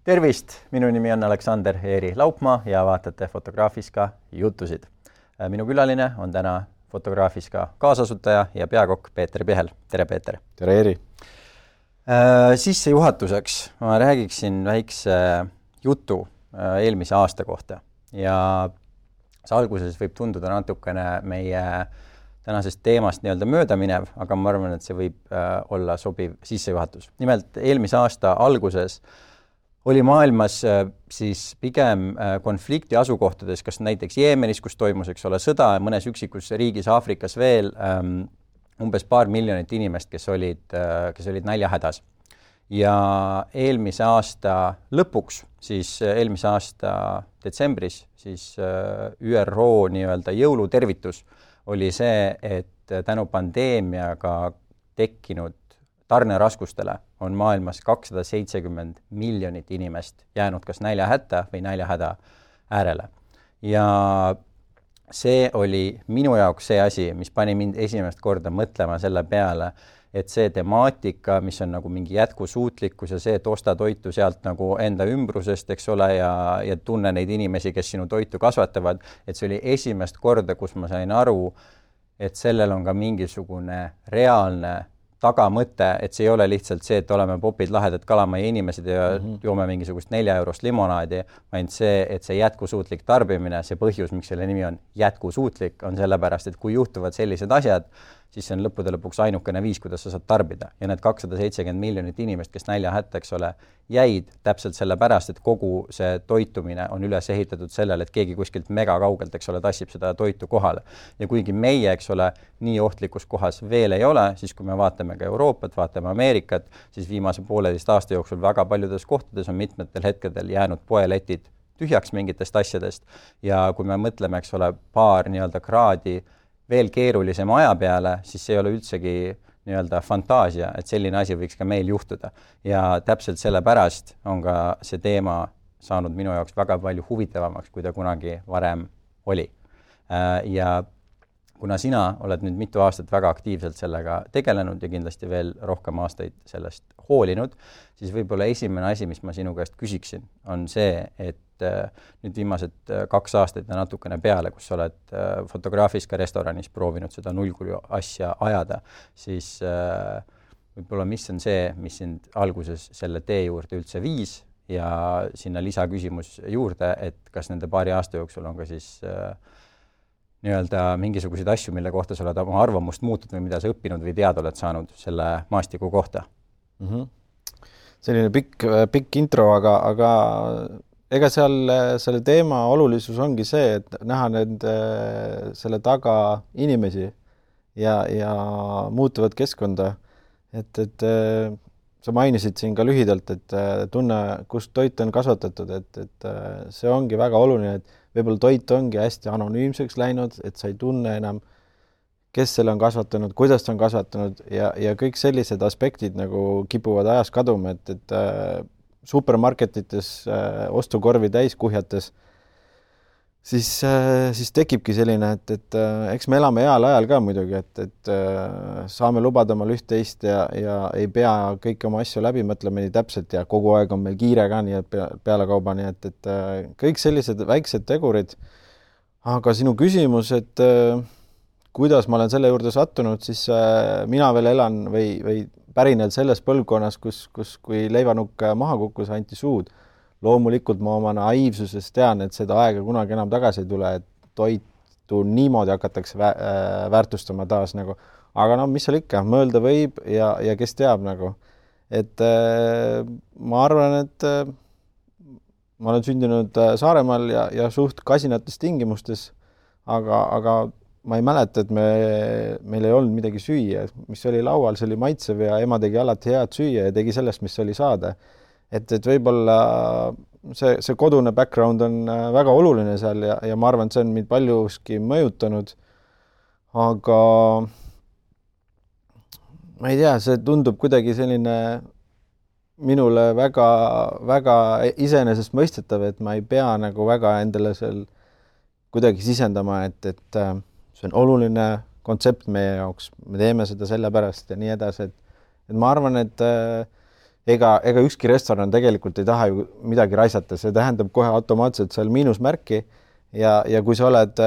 Tervist, minu nimi on Aleksander Eeri Laupmaa ja vaatate Fotograafiska jutusid. Minu külaline on täna Fotograafiska kaasasutaja ja peakokk Peeter Pihel. Tere, Peeter! Tere, Eeri! Sissejuhatuseks ma räägiksin väikse jutu eelmise aasta kohta ja see alguses võib tunduda natukene meie tänasest teemast nii-öelda möödaminev, aga ma arvan, et see võib olla sobiv sissejuhatus. Nimelt, eelmise aasta alguses oli maailmas siis pigem konflikti asukohtades, kas näiteks Jeemenis, kus toimus, sõda, mõnes üksikus riigis Aafrikas veel umbes 2 miljonit inimest, kes olid näljahädas. Ja eelmise aasta lõpuks, siis eelmise aasta detsembris, siis ÜRO nii-öelda jõulutervitus oli see, et tänu pandeemiaga tekkinud tarneraskustele on maailmas 270 miljonit inimest jäänud kas näljahätta või näljahäda äärele. Ja see oli minu jaoks see asi, mis pani mind esimest korda mõtlema selle peale, et see temaatika, mis on nagu mingi jätkusuutlikkus ja see, et osta toitu sealt nagu enda ümbrusest, ja tunne neid inimesi, kes sinu toitu kasvatavad, et see oli esimest korda, kus ma sain aru, et sellel on ka mingisugune reaalne tagamõte, et see ei ole lihtsalt see, et oleme popid lahedad kalamaja inimesed ja joome mingisugust 4 eurost limonaadi, vaid see, et see jätkusuutlik tarbimine, see põhjus, miks selle nimi on jätkusuutlik, on sellepärast, et kui juhtuvad sellised asjad, siis see on lõppude lõpuks ainukene viis, kuidas sa saad tarbida. Ja need 270 miljonit inimest, kes näljahätta, jäid täpselt sellepärast, et kogu see toitumine on üles ehitatud sellele, et keegi kuskilt mega kaugelt, tassib seda toitu kohale. Ja kuigi meie, nii ohtlikus kohas veel ei ole, siis kui me vaatame ka Euroopat, vaatame Ameerikat, siis viimase 1,5 aasta jooksul väga paljudes kohtades on mitmetel hetkedel jäänud poeletid tühjaks mingitest asjadest. Ja kui me mõtleme, paar nii-öelda kraadi veel keerulisem aja peale, siis see ei ole üldsegi nii-öelda fantaasia, et selline asi võiks ka meil juhtuda. Ja täpselt sellepärast on ka see teema saanud minu jaoks väga palju huvitavamaks, kui ta kunagi varem oli. Ja kuna sina oled nüüd mitu aastat väga aktiivselt sellega tegelenud ja kindlasti veel rohkem aastaid sellest hoolinud, siis võib-olla esimene asi, mis ma sinu käest küsiksin, on see, et nüüd viimased 2 aastat ja natukene peale, kus sa oled Fotograafiska restoranis proovinud seda nullkulu asja ajada, siis võib-olla mis on see, mis sind alguses selle tee juurde üldse viis ja sinna lisaküsimus juurde, et kas nende 2 aasta jooksul on ka siis nii-öelda mingisuguseid asju, mille kohta sa oled oma arvamust muutud või mida sa õppinud või teada oled saanud selle maastiku kohta? Selline pikk intro, aga ega selle teema olulisus ongi see, et näha selle taga inimesi ja muutuvat keskkonda. Et sa mainisid siin ka lühidalt, et tunne, kust toit on kasvatatud, et see ongi väga oluline, et võib-olla toit ongi hästi anonüümseks läinud, et sa ei tunne enam, kes selle on kasvatanud, kuidas ta on kasvatanud ja kõik sellised aspektid nagu kipuvad ajas kaduma, et supermarketites ostukorvi täis kuhjates, siis tekibki selline, et eks me elame heal ajal ka muidugi, et saame lubada omal üht-teist ja ei pea kõiki oma asju läbi mõtlema nii täpselt ja kogu aeg on meil kiire ka nii pealekauba, nii et kõik sellised väiksed tegurid. Aga sinu küsimus, et kuidas ma olen selle juurde sattunud, siis mina veel elan või pärinel selles põlvkonnas, kus kui leivanukk maha kukkus, anti suud. Loomulikult ma oma naiivsuses tean, et seda aega kunagi enam tagasi ei tule, et toitu niimoodi hakatakse väärtustama taas nagu. Aga mis seal ikka, mõelda võib ja kes teab nagu. Et ma arvan, et ma olen sündinud Saaremaal ja suht kasinates tingimustes, aga ma ei mäleta, et meil ei olnud midagi süüa. Mis oli laual, see oli maitsev ja ema tegi alati head süüa ja tegi sellest, mis oli saada. Et võib-olla see kodune background on väga oluline seal ja ma arvan, et see on mind paljuski mõjutanud. Aga ma ei tea, see tundub kuidagi selline minule väga, väga iseenesest mõistetav, et ma ei pea nagu väga endale seal kuidagi sisendama, et see on oluline kontsept meie jaoks, me teeme seda sellepärast ja nii edasi, et ma arvan, et ega ükski restoran tegelikult ei taha ju midagi raisata, see tähendab kohe automaatselt seal miinusmärki ja kui sa oled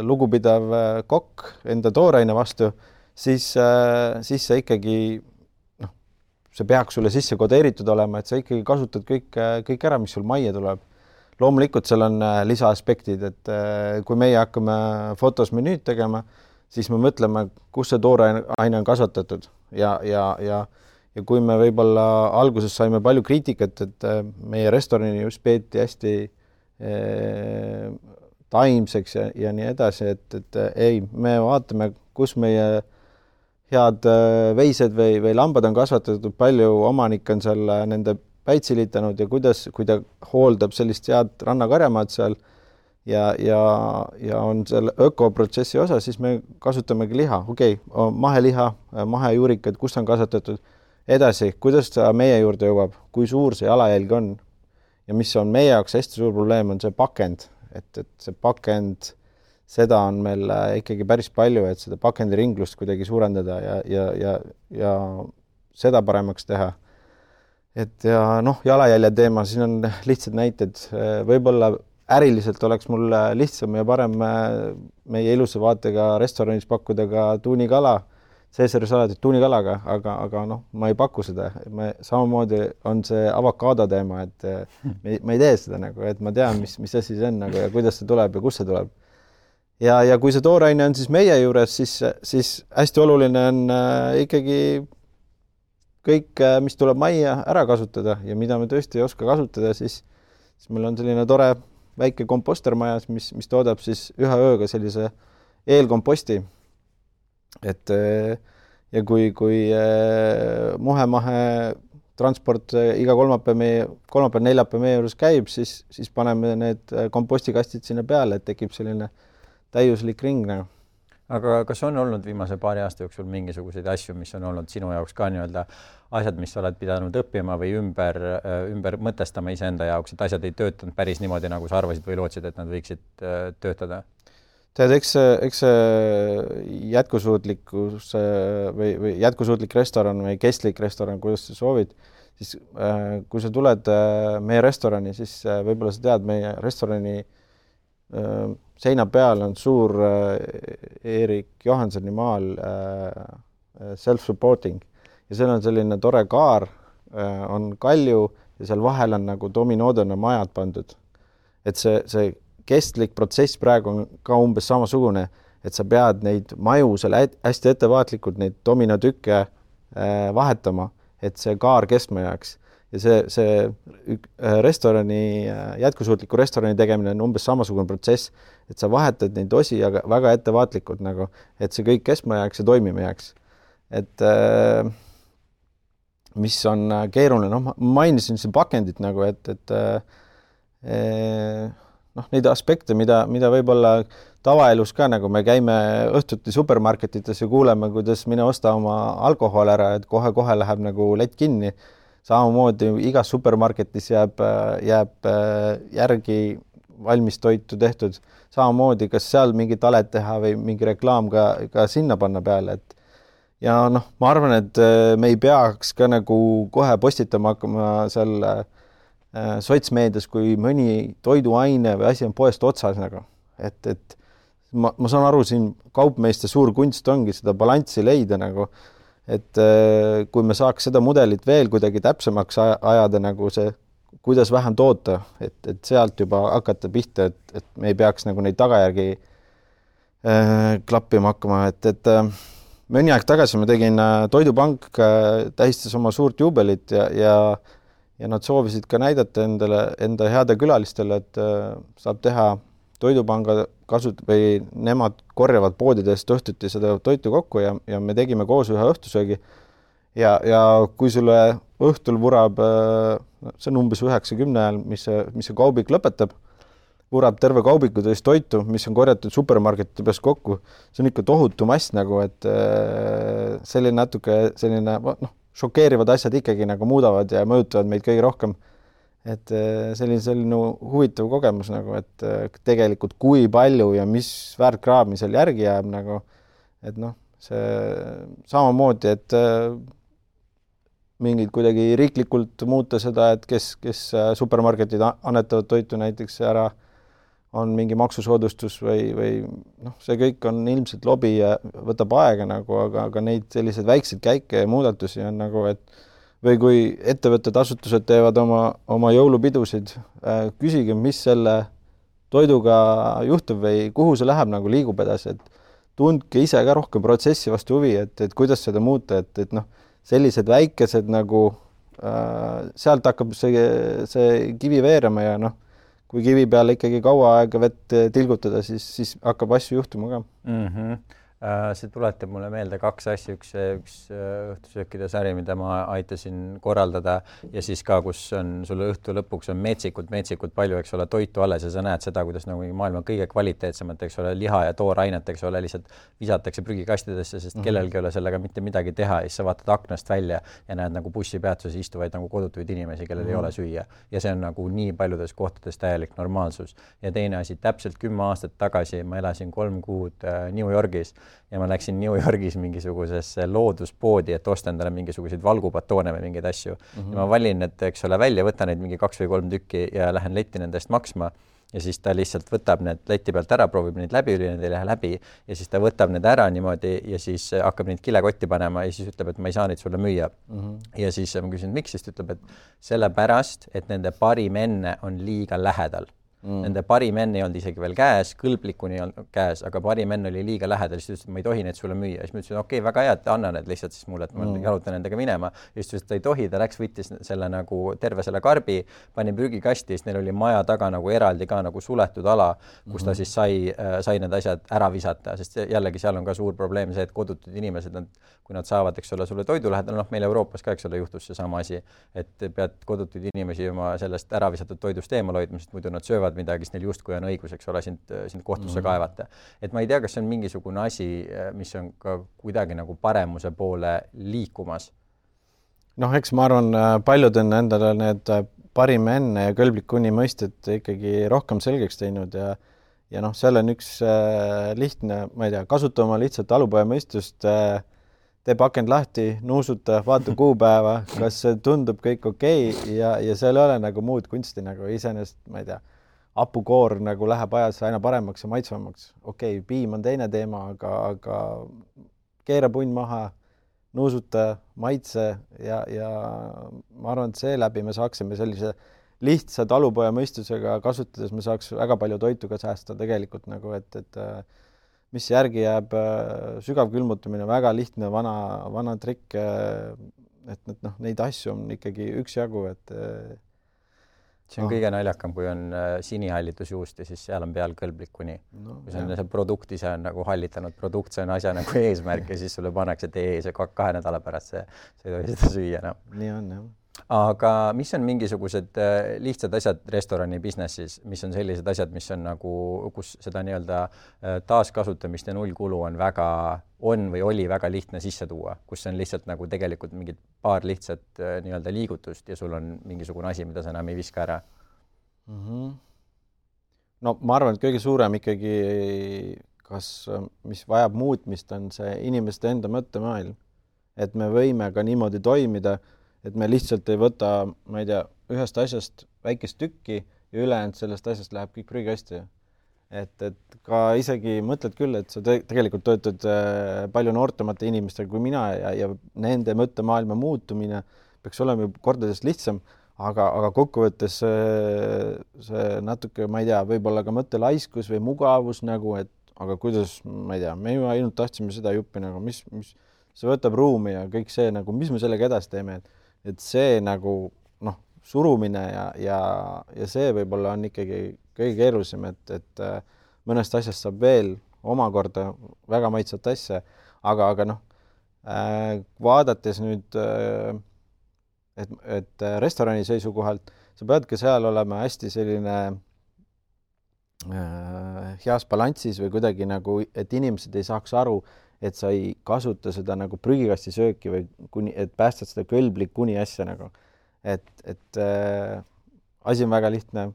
lugupidav kokk enda tooraine vastu, siis sa ikkagi, noh, see peaks sulle sisse kodeeritud olema, et sa ikkagi kasutad kõik ära, mis sul majja tuleb. Loomulikult seal on lisaaspektid, et kui meie hakkame fotos menüüd tegema, siis me mõtleme, kus see tooraine on kasvatatud ja kui me võib-olla alguses saime palju kriitikat, et meie restorani just peeti hästi taimseks ja nii edasi, et ei, me vaatame, kus meie head veised või lambad on kasvatatud, palju omanik on seal nende päitsilitanud ja kui ta hooldab sellist head rannakarjamaad seal ja on seal ökoprotsessi osa, siis me kasutamegi liha. Okei, maheliha, mahejuurikad, kus on kasvatatud. Edasi, kuidas ta meie juurde jõuab, kui suur see jalajälg on ja mis on meie jaoks hästi suur probleem, on see pakend, et see pakend, seda on meil ikkagi päris palju, et seda pakendiringlust kuidagi suurendada ja seda paremaks teha. Et ja jalajälje teema, siin on lihtsad näited, võib-olla äriliselt oleks mul lihtsam ja parem meie ilusa vaatega restoranis pakkuda ka tuunikala, Caesari salatit tuunikalaga, aga ma ei paku seda. Samamoodi on see avokaado teema, et ma ei tee seda nagu, et ma tean, mis asi see on nagu, ja kuidas see tuleb ja kus see tuleb. Ja kui see tooraine on siis meie juures, siis hästi oluline on ikkagi kõik, mis tuleb majja ära kasutada ja mida me tõesti ei oska kasutada, siis meil on selline tore väike kompostermajas, mis toodab siis ühe ööga sellise eelkomposti. Et ja kui muhe-mahe transport iga kolmapäev-neljapäev meie juures käib, siis paneme need kompostikastid sinna peale, et tekib selline täiuslik ring. Aga kas on olnud viimase paari aasta jooksul mingisuguseid asju, mis on olnud sinu jaoks ka nii-öelda asjad, mis oled pidanud õppima või ümber mõtestama iseenda jaoks, et asjad ei töötanud päris niimoodi, nagu sa arvasid või lootsid, et nad võiksid töötada? Tead, eks see jätkusuutlikkus või jätkusuutlik restoran või kestlik restoran, kuidas sa soovid, siis kui sa tuled meie restorani, siis võib-olla sa tead, meie restorani seina peal on suur Erik Johansoni maal self-supporting ja seal on selline tore kaar, on kalju ja seal vahel on nagu dominoodena majad pandud. Et see kestlik protsess praegu on ka umbes samasugune, et sa pead neid maju seal hästi ettevaatlikult neid dominotükke vahetama, et see kaar kestma jääks. Ja see restorani, jätkusuutliku restorani tegemine on umbes samasugune protsess, et sa vahetad neid osi aga väga ettevaatlikult, nagu, et see kõik kestma jääks ja toimima jääks. Et mis on keeruline, ma mainisin siin pakendit, nagu, et neid aspekte, mida võib-olla tavaelus ka, nagu me käime õhtuti supermarketites ja kuuleme, kuidas mine osta oma alkohol ära, et kohe läheb nagu lett kinni. Samamoodi igas supermarketis jääb järgi valmis toitu tehtud. Samamoodi, kas seal mingi talet teha või mingi reklaam ka sinna panna peale. Ja ma arvan, et me ei peaks ka nagu kohe postitama hakkama seal sotsmeedias, kui mõni toiduaine või asi on poest otsas. Nagu. Et ma saan aru, siin kaupmeeste suur kunst ongi seda balanssi leida. Nagu, et kui me saaks seda mudelit veel kuidagi täpsemaks ajada, nagu see, kuidas vähem toota, et sealt juba hakata pihta, et me ei peaks nagu neid tagajärgi klappima hakkama. Et mõni aeg tagasi ma tegin Toidupank, tähistas oma suurt juubelit ja nad soovisid ka näidata enda heade külalistele, et saab teha Toidupanga või nemad korjavad poodidest õhtuti seda toitu kokku ja me tegime koos ühe õhtusöögi. Ja kui sulle õhtul vurab, see on umbes 9-10 ajal, mis see kaubik lõpetab, vurab terve kaubiku tõest toitu, mis on korjatud supermarketide peast kokku. See on ikka tohutu mass, nagu, et selline natuke šokeerivad asjad ikkagi nagu muudavad ja mõjutavad meid kõige rohkem. Et selline huvitav kogemus, nagu, et tegelikult kui palju ja mis väärtkraami seal järgi jääb, nagu, et see samamoodi, et mingid kuidagi riiklikult muuta seda, et kes supermarketid annetavad toitu näiteks ära, on mingi maksusoodustus või noh, see kõik on ilmselt lobi ja võtab aega nagu, aga neid selliseid väikseid käike ja muudatusi on nagu, et või kui ettevõtted, asutused teevad oma jõulupidusid, küsige, mis selle toiduga juhtub või kuhu see läheb, nagu liigub edasi, et tundke ise ka rohkem protsessi vastu huvi, et kuidas seda muuta, et noh, sellised väikesed nagu sealt hakkab see kivi veerema ja noh, kui kivi peale ikkagi kaua aega vett tilgutada, siis hakkab asju juhtuma ka. See tuletab mulle meelde kaks asja, üks õhtusöökide sari, mida ma aitasin korraldada ja siis ka, kus on sulle õhtu lõpuks on metsikult palju, eks ole, toitu alles ja sa näed seda, kuidas nagu maailma kõige kvaliteetsemat, eks ole, liha ja toorainet, eks ole, lihtsalt visatakse prügikastidesse, sest kellelgi ei ole sellega mitte midagi teha ja siis sa vaatad aknast välja ja näed nagu bussipeatuses istuvaid nagu kodutuid inimesi, kellel ei ole süüa. Ja see on nagu nii paljudes kohtades täielik normaalsus. Ja teine asi, täpselt 10 aastat tagasi ma elasin 3 kuud New Yorgis ja ma läksin New Yorgis mingisugusesse looduspoodi, et osta endale mingisuguseid valgupatoone või mingeid asju. Ja ma valin, et eks ole välja, võtan neid mingi 2 või 3 tükki ja lähen letti nendest maksma ja siis ta lihtsalt võtab need leti pealt ära, proovib neid läbi, need ei lähe läbi ja siis ta võtab need ära niimoodi ja siis hakkab neid kilekotti panema ja siis ütleb, et ma ei saa neid sulle müüa. Ja siis ma küsin, miks, siis ütleb, et sellepärast, et nende parim enne on liiga lähedal. Nende parim enne ei olnud isegi veel käes, kõlblikuni ei olnud käes, aga parim enne oli liiga lähedal, siis ütles, et ma ei tohi neid sulle müüa. Siis ma ütlesin, okei, väga hea, et anna need lihtsalt siis mulle, et ma jalutan nendega minema. Ja siis ütles, et ta ei tohi, ta läks, võttis selle nagu terve selle karbi, pani prügikasti, siis neil oli maja taga nagu eraldi ka nagu suletud ala, kus ta siis sai need asjad ära visata, sest jällegi seal on ka suur probleem see, et kodutud inimesed, kui nad saavad, eks ole, sulle toidu lähedal, noh, meil Euroopas ka, eks ole, juhtus see sama asi, et pead kodutud inimesi oma sellest ära visatud toidust eemal hoidma, sest muidu nad söövad midagi, siis neil justkui on õigus, eks ole, sind kohtusse kaevata. Et ma ei tea, kas see on mingisugune asi, mis on ka kuidagi nagu paremuse poole liikumas. Noh, eks ma arvan, paljud on endale need parim enne ja kõlblik kuni mõisted ikkagi rohkem selgeks teinud ja noh, seal on üks lihtne, ma ei tea, kasuta oma lihtsalt talupoja mõistust, tee pakend lahti, nuusuta, vaata kuupäeva, kas see tundub kõik okei ja seal ei ole nagu muud kunsti nagu iseenesest, ma ei tea, hapukoor nagu läheb ajas aina paremaks ja maitsvamaks. Okei, piim on teine teema, aga keera punn maha, nuusuta, maitse ja ma arvan, et seeläbi me saaksime sellise lihtsa talupoja mõistusega kasutades, me saaks väga palju toitu ka säästa tegelikult nagu, et mis järgi jääb sügav külmutamine, väga lihtne vana trikk, et noh, neid asju on ikkagi üksjagu, et see on kõige naljakam, kui on sinihallitusjuust ja siis seal on peal kõlblik kuni. Kui see produkt ise on nagu hallitanud produkt, see on asja nagu eesmärk ja siis sulle pannakse, et see 2 nädala pärast see ei tohi seda süüa enam. Nii on, jah. Aga mis on mingisugused lihtsad asjad restorani businessis, mis on sellised asjad, mis on nagu, kus seda nii-öelda taaskasutamist ja nullkulu on või oli väga lihtne sisse tuua, kus on lihtsalt nagu tegelikult mingid paar lihtsat nii-öelda liigutust ja sul on mingisugune asi, mida sa enam ei viska ära? No ma arvan, et kõige suurem ikkagi, mis vajab muutmist, on see inimeste enda mõttemaailm. Et me võime ka niimoodi toimida, et me lihtsalt ei võta, ma ei tea, ühest asjast väikest tükki ja ülejäänud sellest asjast läheb kõik prügikasti. Et ka isegi mõtled küll, et sa tegelikult töötad palju noortemate inimestega kui mina ja nende mõttemaailma muutumine peaks olema kordades lihtsam, aga kokkuvõttes see natuke, ma ei tea, võib-olla ka mõttelaiskus või mugavus nagu, et aga kuidas, ma ei tea, me ju ainult tahtsime seda juppi nagu, mis see võtab ruumi ja kõik see nagu, mis me sellega edasi teeme, et see nagu noh, surumine ja see võib-olla on ikkagi kõige keerulisem, et mõnest asjast saab veel omakorda väga maitsvat asja, aga noh, vaadates nüüd, et restorani seisukohalt, sa peadki seal olema hästi selline heas balanssis või kuidagi nagu, et inimesed ei saaks aru, et sa ei kasuta seda nagu prügikasti sööki või et päästad seda kõlblik kuni asja nagu. Et asi on väga lihtne,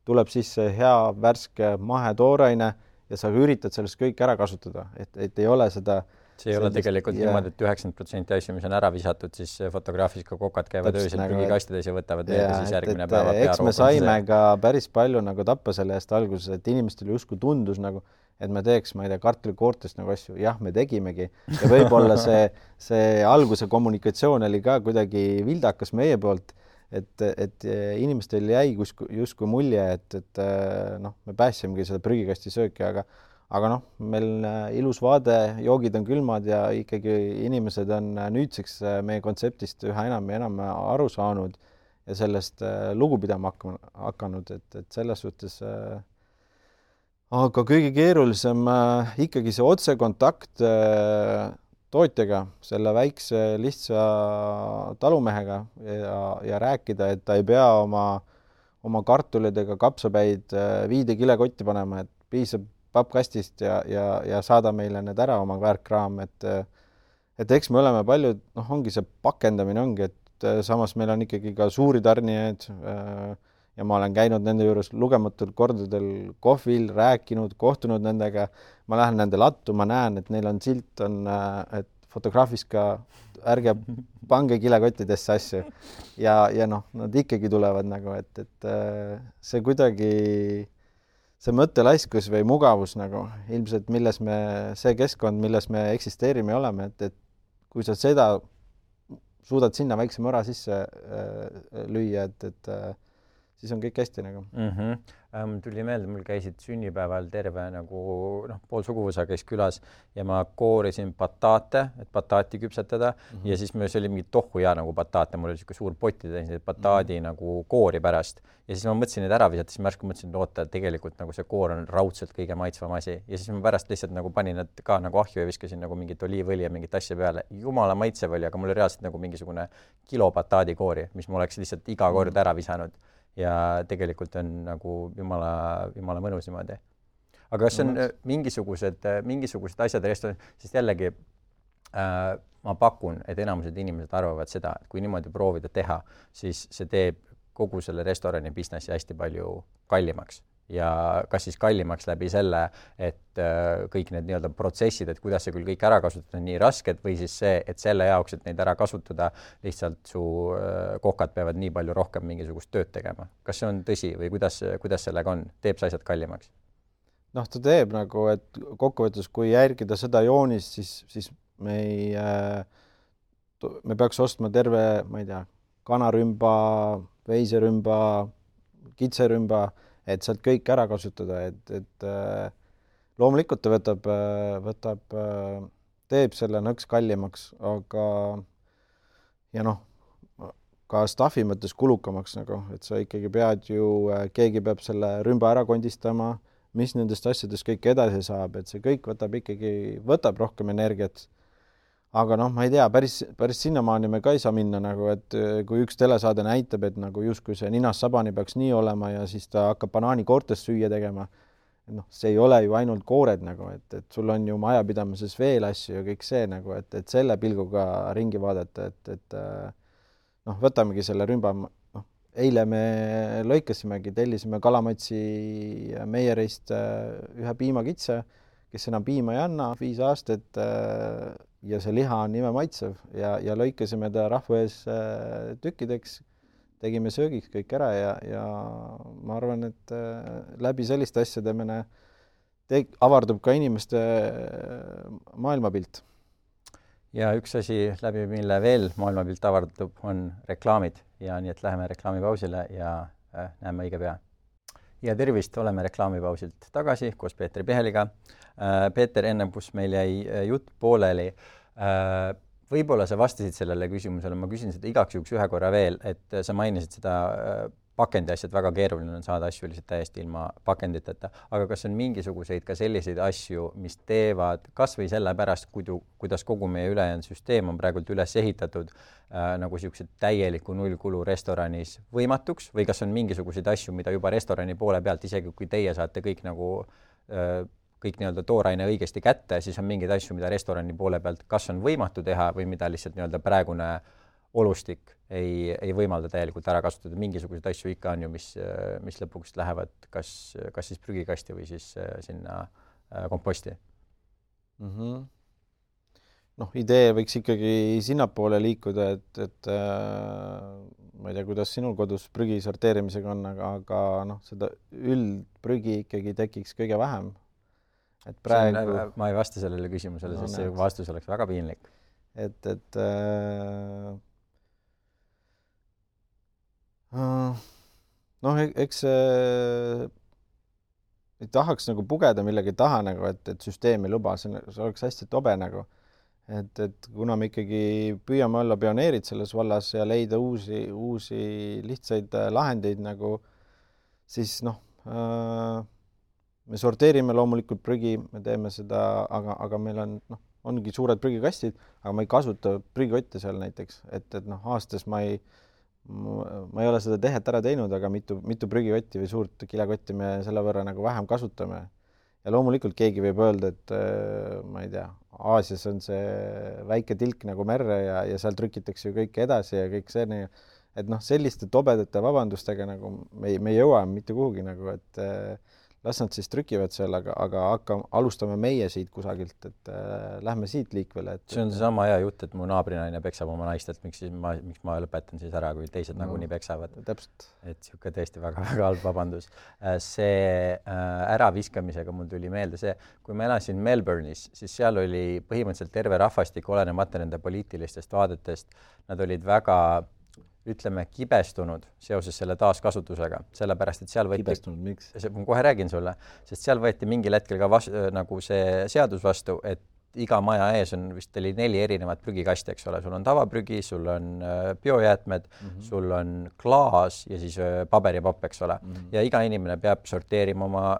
tuleb sisse hea värske mahe tooraine ja sa üritad sellest kõik ära kasutada, et ei ole seda see ei ole tegelikult niimoodi, et 90% asju, mis on ära visatud, siis fotograafis ka kokad käivad öösel nagu, prügikastides ja võtavad veega siis järgmine päeva eks me saime ka päris palju nagu tappa selle eest alguses, et inimestel justkui tundus nagu, et me teeks, ma ei tea, kartulikoortest nagu asju, jah, me tegimegi ja võib-olla see alguse kommunikatsioon oli ka kuidagi vildakas meie poolt, et inimestel jäi justkui mulje, et noh, me päässimegi seda prügikasti sööki, aga noh, meil ilus vaade, joogid on külmad ja ikkagi inimesed on nüüdseks meie kontseptist üha enam ja enam aru saanud ja sellest lugu pidama hakanud, et selles suhtes aga kõige keerulisem ikkagi see otsekontakt tootjaga, selle väikse lihtsa talumehega ja rääkida, et ta ei pea oma kartulid ega kapsapäid viide kilekotti panema, et piisab pappkastist ja saada meile need ära oma väärkraam, et eks me oleme palju, noh, ongi see pakendamine ongi, et samas meil on ikkagi ka suuri tarnijaid ja ma olen käinud nende juures lugematul kordadel kohvil, rääkinud, kohtunud nendega, ma lähen nende lattu, ma näen, et neil on silt, et fotograafis ka ärge pange kilekottidesse asju ja noh, nad ikkagi tulevad nagu, et see kuidagi see mõttelaiskus või mugavus nagu ilmselt, see keskkond, milles me eksisteerime ja oleme, et kui sa seda suudad sinna väikse mõra sisse lüüa, et siis on kõik hästi nagu. Tuli meelde, mul käisid sünnipäeval terve nagu pool suguvõsa käis külas ja ma koorisin bataate, et bataati küpsetada ja siis see oli mingi tohku ja nagu bataate, mul oli niisugune suur potti täis bataadi nagu koori pärast ja siis ma mõtlesin neid ära visata, siis ma järsku mõtlesin, et oota, tegelikult nagu see koor on raudselt kõige maitsvam asi ja siis ma pärast lihtsalt nagu panin need ka nagu ahju ja viskasin nagu mingit oliivõli ja mingit asja peale. Jumala maitsev oli, aga mul oli reaalselt nagu mingisugune kilo bataadi koori, mis ma oleks lihtsalt iga kord ära visanud. Ja tegelikult on nagu jumala mõnus niimoodi. Aga kas on mingisugused asjad restoranis, sest jällegi ma pakun, et enamused inimesed arvavad seda, et kui niimoodi proovida teha, siis see teeb kogu selle restorani businessi hästi palju kallimaks. Ja kas siis kallimaks läbi selle, et kõik need nii-öelda protsessid, et kuidas see küll kõik ära kasutada on nii rasked või siis see, et selle jaoks, et neid ära kasutada, lihtsalt su kokad peavad nii palju rohkem mingisugust tööd tegema. Kas see on tõsi või kuidas sellega on? Teeb see asjad kallimaks? Noh, ta teeb nagu, et kokkuvõttes, kui järgida seda joonist, siis me peaks ostma terve, ma ei tea, kanarümba, veiserümba, kitserümba, et sealt kõik ära kasutada, et loomulikult ta teeb selle nõks kallimaks, aga ja noh, ka staffi mõttes kulukamaks nagu, et sa ikkagi pead ju, keegi peab selle rümba ära kondistama, mis nendest asjadest kõik edasi saab, et see kõik võtab rohkem energiat. Aga noh, ma ei tea, päris sinnamaani me ka ei saa minna nagu, et kui üks telesaade näitab, et nagu justkui see ninas sabani peaks nii olema ja siis ta hakkab banaanikoortest süüa tegema. Noh, see ei ole ju ainult koored nagu, et sul on ju majapidamises veel asju ja kõik see nagu, et selle pilguga ringi vaadata, et noh, võtamegi selle rümba, noh, eile me lõikasimegi, tellisime Kalamatsi Meierist ühe piimakitse, kes enam piima ei anna, 5 aastat ja see liha on nime maitsev ja lõikasime ta rahva ees tükkideks, tegime söögiks kõik ära ja ma arvan, et läbi selliste asjade avardub ka inimeste maailmapilt. Ja üks asi, läbi mille veel maailmapilt avardub, on reklaamid ja nii, et läheme reklaamipausile ja näeme õige pea. Ja tervist, oleme reklaamipausilt tagasi koos Peetri Piheliga. Peeter, ennem kus meil jäi jutt pooleli, võib-olla sa vastasid sellele küsimusele, ma küsin seda igaks juhuks ühe korra veel, et sa mainisid seda pakendi asjad, väga keeruline on saada asju lihtsalt täiesti ilma pakenditeta, aga kas on mingisuguseid ka selliseid asju, mis teevad kas või sellepärast, kuidas kogu meie ülejäänud süsteem on praegult üles ehitatud nagu niisugused täieliku nullkulu restoranis võimatuks või kas on mingisuguseid asju, mida juba restorani poole pealt, isegi kui teie saate kõik nagu kõik nii-öelda tooraine õigesti kätte, siis on mingeid asju, mida restorani poole pealt kas on võimatu teha või mida lihtsalt nii-öelda praegune olustik ei võimalda täielikult ära kasutada. Mingisuguseid asju ikka on ju, mis lõpuks lähevad kas siis prügikasti või siis sinna komposti. idee võiks ikkagi sinnapoole liikuda, et ma ei tea, kuidas sinul kodus prügi sorteerimisega on, aga seda üldprügi ikkagi tekiks kõige vähem. Et praegu... ma ei vasta sellele küsimusele, sest see vastus oleks väga piinlik. Eks ei tahaks nagu pugeda millegi taha, nagu, et süsteemi luba, see oleks hästi tobe nagu. Et kuna me ikkagi püüame olla pioneerid selles vallas ja leida uusi lihtsaid lahendeid, nagu, siis me sorteerime loomulikult prügi, me teeme seda, aga meil ongi suured prügikastid, aga ma ei kasuta prügikotte seal näiteks, et aastas ma ei ole seda tehet ära teinud, aga mitu prügikotti või suurt kilekotti me selle võrra nagu vähem kasutame. Ja loomulikult keegi võib öelda, et ma ei tea, Aasias on see väike tilk nagu merre ja seal trükitakse ju kõik edasi ja kõik see, et selliste tobedate vabandustega nagu me ei jõua mitte kuhugi nagu, et las nad siis trükivad seal, aga alustame meie siit kusagilt, et lähme siit liikvele. See on sama hea jutt, et mu naabrinaine peksab oma naist, et miks ma lõpetan siis ära, kui teised nagunii peksavad. Täpselt. Et siuke tõesti väga halb vabandus. See äraviskamisega mul tuli meelde see, kui ma elasin Melbourne'is, siis seal oli põhimõtteliselt terve rahvastik olenemata nende poliitilistest vaadetest. Nad olid väga ütleme, kibestunud seoses selle taaskasutusega, sellepärast, et seal võeti... Kibestunud, miks? Ma kohe räägin sulle, sest seal võeti mingil hetkel ka nagu see seadus vastu, et iga maja ees on vist 4 erinevat prügikasti, eks ole, sul on tavaprügi, sul on biojäätmed, sul on klaas ja siis paberipapp, eks ole. Ja iga inimene peab sorteerima oma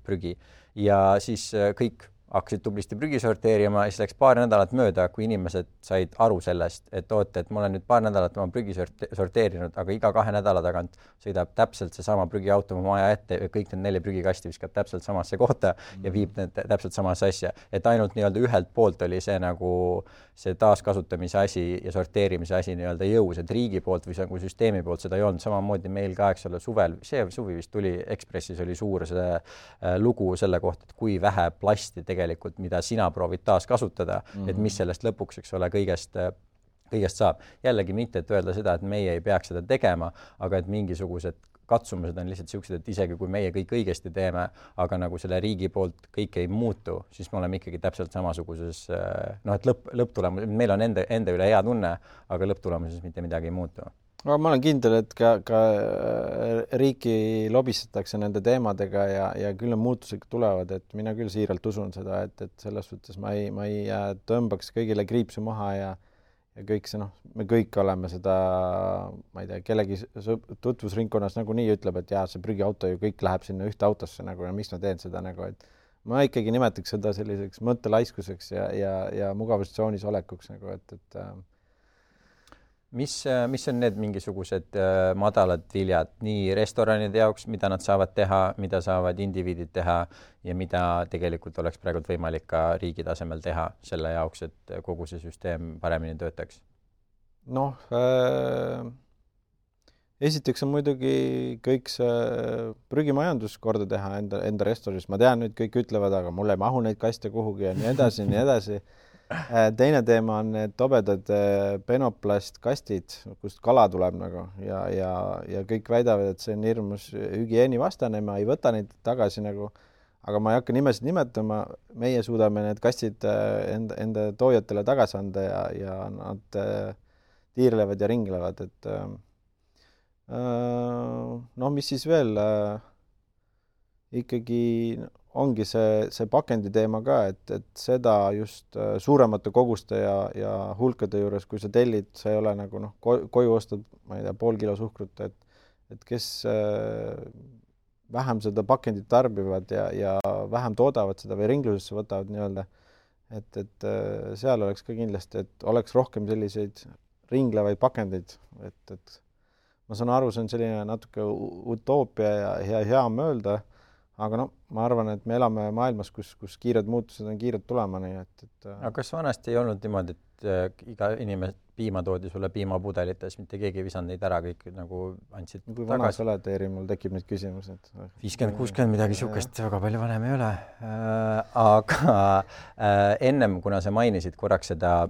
prügi. Ja siis kõik hakkasid tublisti prügi sorteerima ja siis läks paar nädalat mööda, kui inimesed said aru sellest, et et ma olen nüüd paar nädalat oma prügi sorteerinud, aga iga 2 nädala tagant sõidab täpselt seesama prügiauto oma maja ette ja kõik need 4 prügikasti viskab täpselt samasse kohta ja viib need täpselt samasse asja. Et ainult nii-öelda ühelt poolt oli see nagu see taaskasutamise asi ja sorteerimise asi nii-öelda jõus, et riigi poolt või nagu süsteemi poolt seda ei olnud. Samamoodi meil ka, eks ole, suvel, see suvi vist tuli Ekspressis oli suur see lugu selle kohta, et kui vähe plasti tegelikult, mida sina proovid taas kasutada, et mis sellest lõpuks, eks ole, kõigest saab. Jällegi mitte, et öelda seda, et meie ei peaks seda tegema, aga et mingisugused katsumused on lihtsalt sellised, et isegi kui meie kõik õigesti teeme, aga nagu selle riigi poolt kõik ei muutu, siis me oleme ikkagi täpselt samasuguses, et lõpptulemus, meil on enda üle hea tunne, aga lõpptulemuses mitte midagi ei muutu. No, ma olen kindel, et ka riiki lobistatakse nende teemadega ja küll on muutused tulevad, et mina küll siiralt usun seda, et selles suhtes ma ei tõmbaks kõigile kriipsu maha ja kõik see, me kõik oleme seda, ma ei tea, kellegi tutvusringkonnas nagunii ütleb, et jaa, see prügiauto ju kõik läheb sinna ühte autosse nagu ja miks ma teen seda nagu, et ma ikkagi nimetaks seda selliseks mõttelaiskuseks ja mugavustsoonis olekuks nagu, et Mis on need mingisugused madalad viljad nii restoranide jaoks, mida nad saavad teha, mida saavad indiviidid teha ja mida tegelikult oleks praegu võimalik ka riigi tasemel teha selle jaoks, et kogu see süsteem paremini töötaks? Esiteks on muidugi kõik see prügimajandus korda teha enda restoranis. Ma tean, nüüd kõik ütlevad, aga mulle ei mahu neid kaste kuhugi ja nii edasi, nii edasi. Teine teema on need tobedad penoplastkastid, kust kala tuleb nagu ja kõik väidavad, et see on hirmus hügieenivastane, ma ei võta neid tagasi nagu, aga ma ei hakka nimesid nimetama, meie suudame need kastid enda toojatele tagasi anda ja nad tiirlevad ja ringlevad, et mis siis veel ikkagi ongi see pakendi teema ka, et seda just suuremate koguste ja hulkade juures, kui sa tellid, sa ei ole nagu koju ostad, ma ei tea, pool kilo suhkrut, et kes vähem seda pakendit tarbivad ja vähem toodavad seda või ringlusesse võtavad nii-öelda, et seal oleks ka kindlasti, et oleks rohkem selliseid ringlevaid pakendeid, et ma saan aru, see on selline natuke utoopia ja hea mõelda, aga no ma arvan, et me elame maailmas, kus kiired muutused on kiired tulema, nii et aga kas vanasti ei olnud niimoodi, et iga inimene piima toodi sulle piimapudelites, mitte keegi ei visanud neid ära, kõik nagu andsid kui vana sa oled, Eeri, mul tekib need küsimused. 50-60 midagi sihukest, väga palju vanem ei ole. Aga ennem, kuna sa mainisid korraks seda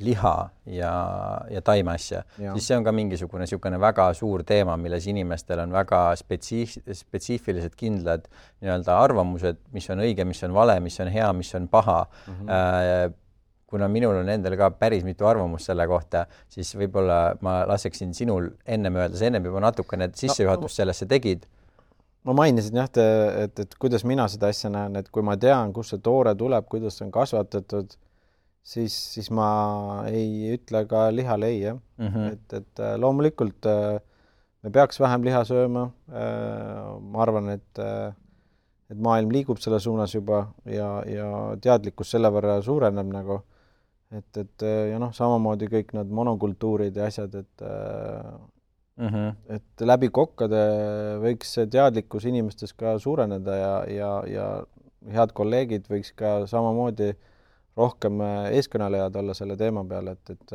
liha ja taime asja, siis see on ka mingisugune sihukene väga suur teema, milles inimestel on väga spetsiifilised kindlad nii-öelda arvamused, mis on õige, mis on vale, mis on hea, mis on paha. Kuna minul on endal ka päris mitu arvamust selle kohta, siis võib-olla ma laseksin sinul ennem öelda, sa ennem juba natukene sissejuhatust sellesse tegid. Ma mainisin jah, et kuidas mina seda asja näen, et kui ma tean, kus see toore tuleb, kuidas see on kasvatatud, siis ma ei ütle ka lihale ei, jah. Et loomulikult me peaks vähem liha sööma. Ma arvan, et maailm liigub selle suunas juba ja teadlikkus selle võrra suureneb nagu. Et ja noh, samamoodi kõik need monokultuurid ja asjad, et läbi kokkade võiks see teadlikkus inimestes ka suureneda ja head kolleegid võiks ka samamoodi rohkem eeskõnelejad olla selle teema peal, et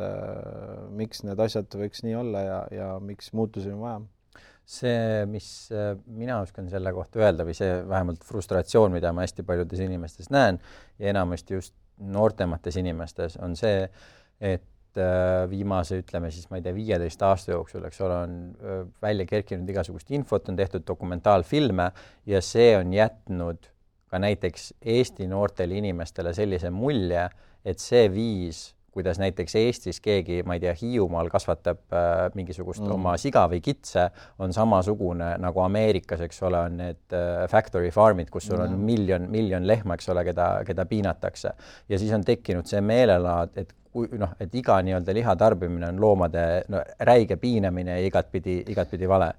miks need asjad võiks nii olla ja miks muutusi on vaja. See, mis mina oskan selle kohta öelda või see vähemalt frustratsioon, mida ma hästi paljudes inimestes näen ja enamasti just noortemates inimestes on see, et viimase, ütleme siis, ma ei tea, 15 aasta jooksul, eks ole, on välja kerkinud igasugust infot, on tehtud dokumentaalfilme ja see on jätnud ka näiteks Eesti noortele inimestele sellise mulje, et see viis, kuidas näiteks Eestis keegi, ma ei tea, Hiiumaal kasvatab mingisugust oma siga või kitse, on samasugune nagu Ameerikas, eks ole, on need factory farmid, kus sul on miljon lehma, eks ole, keda piinatakse. Ja siis on tekkinud see meelelaad, et iga nii-öelda liha tarbimine on loomade räige piinamine ja igatpidi vale.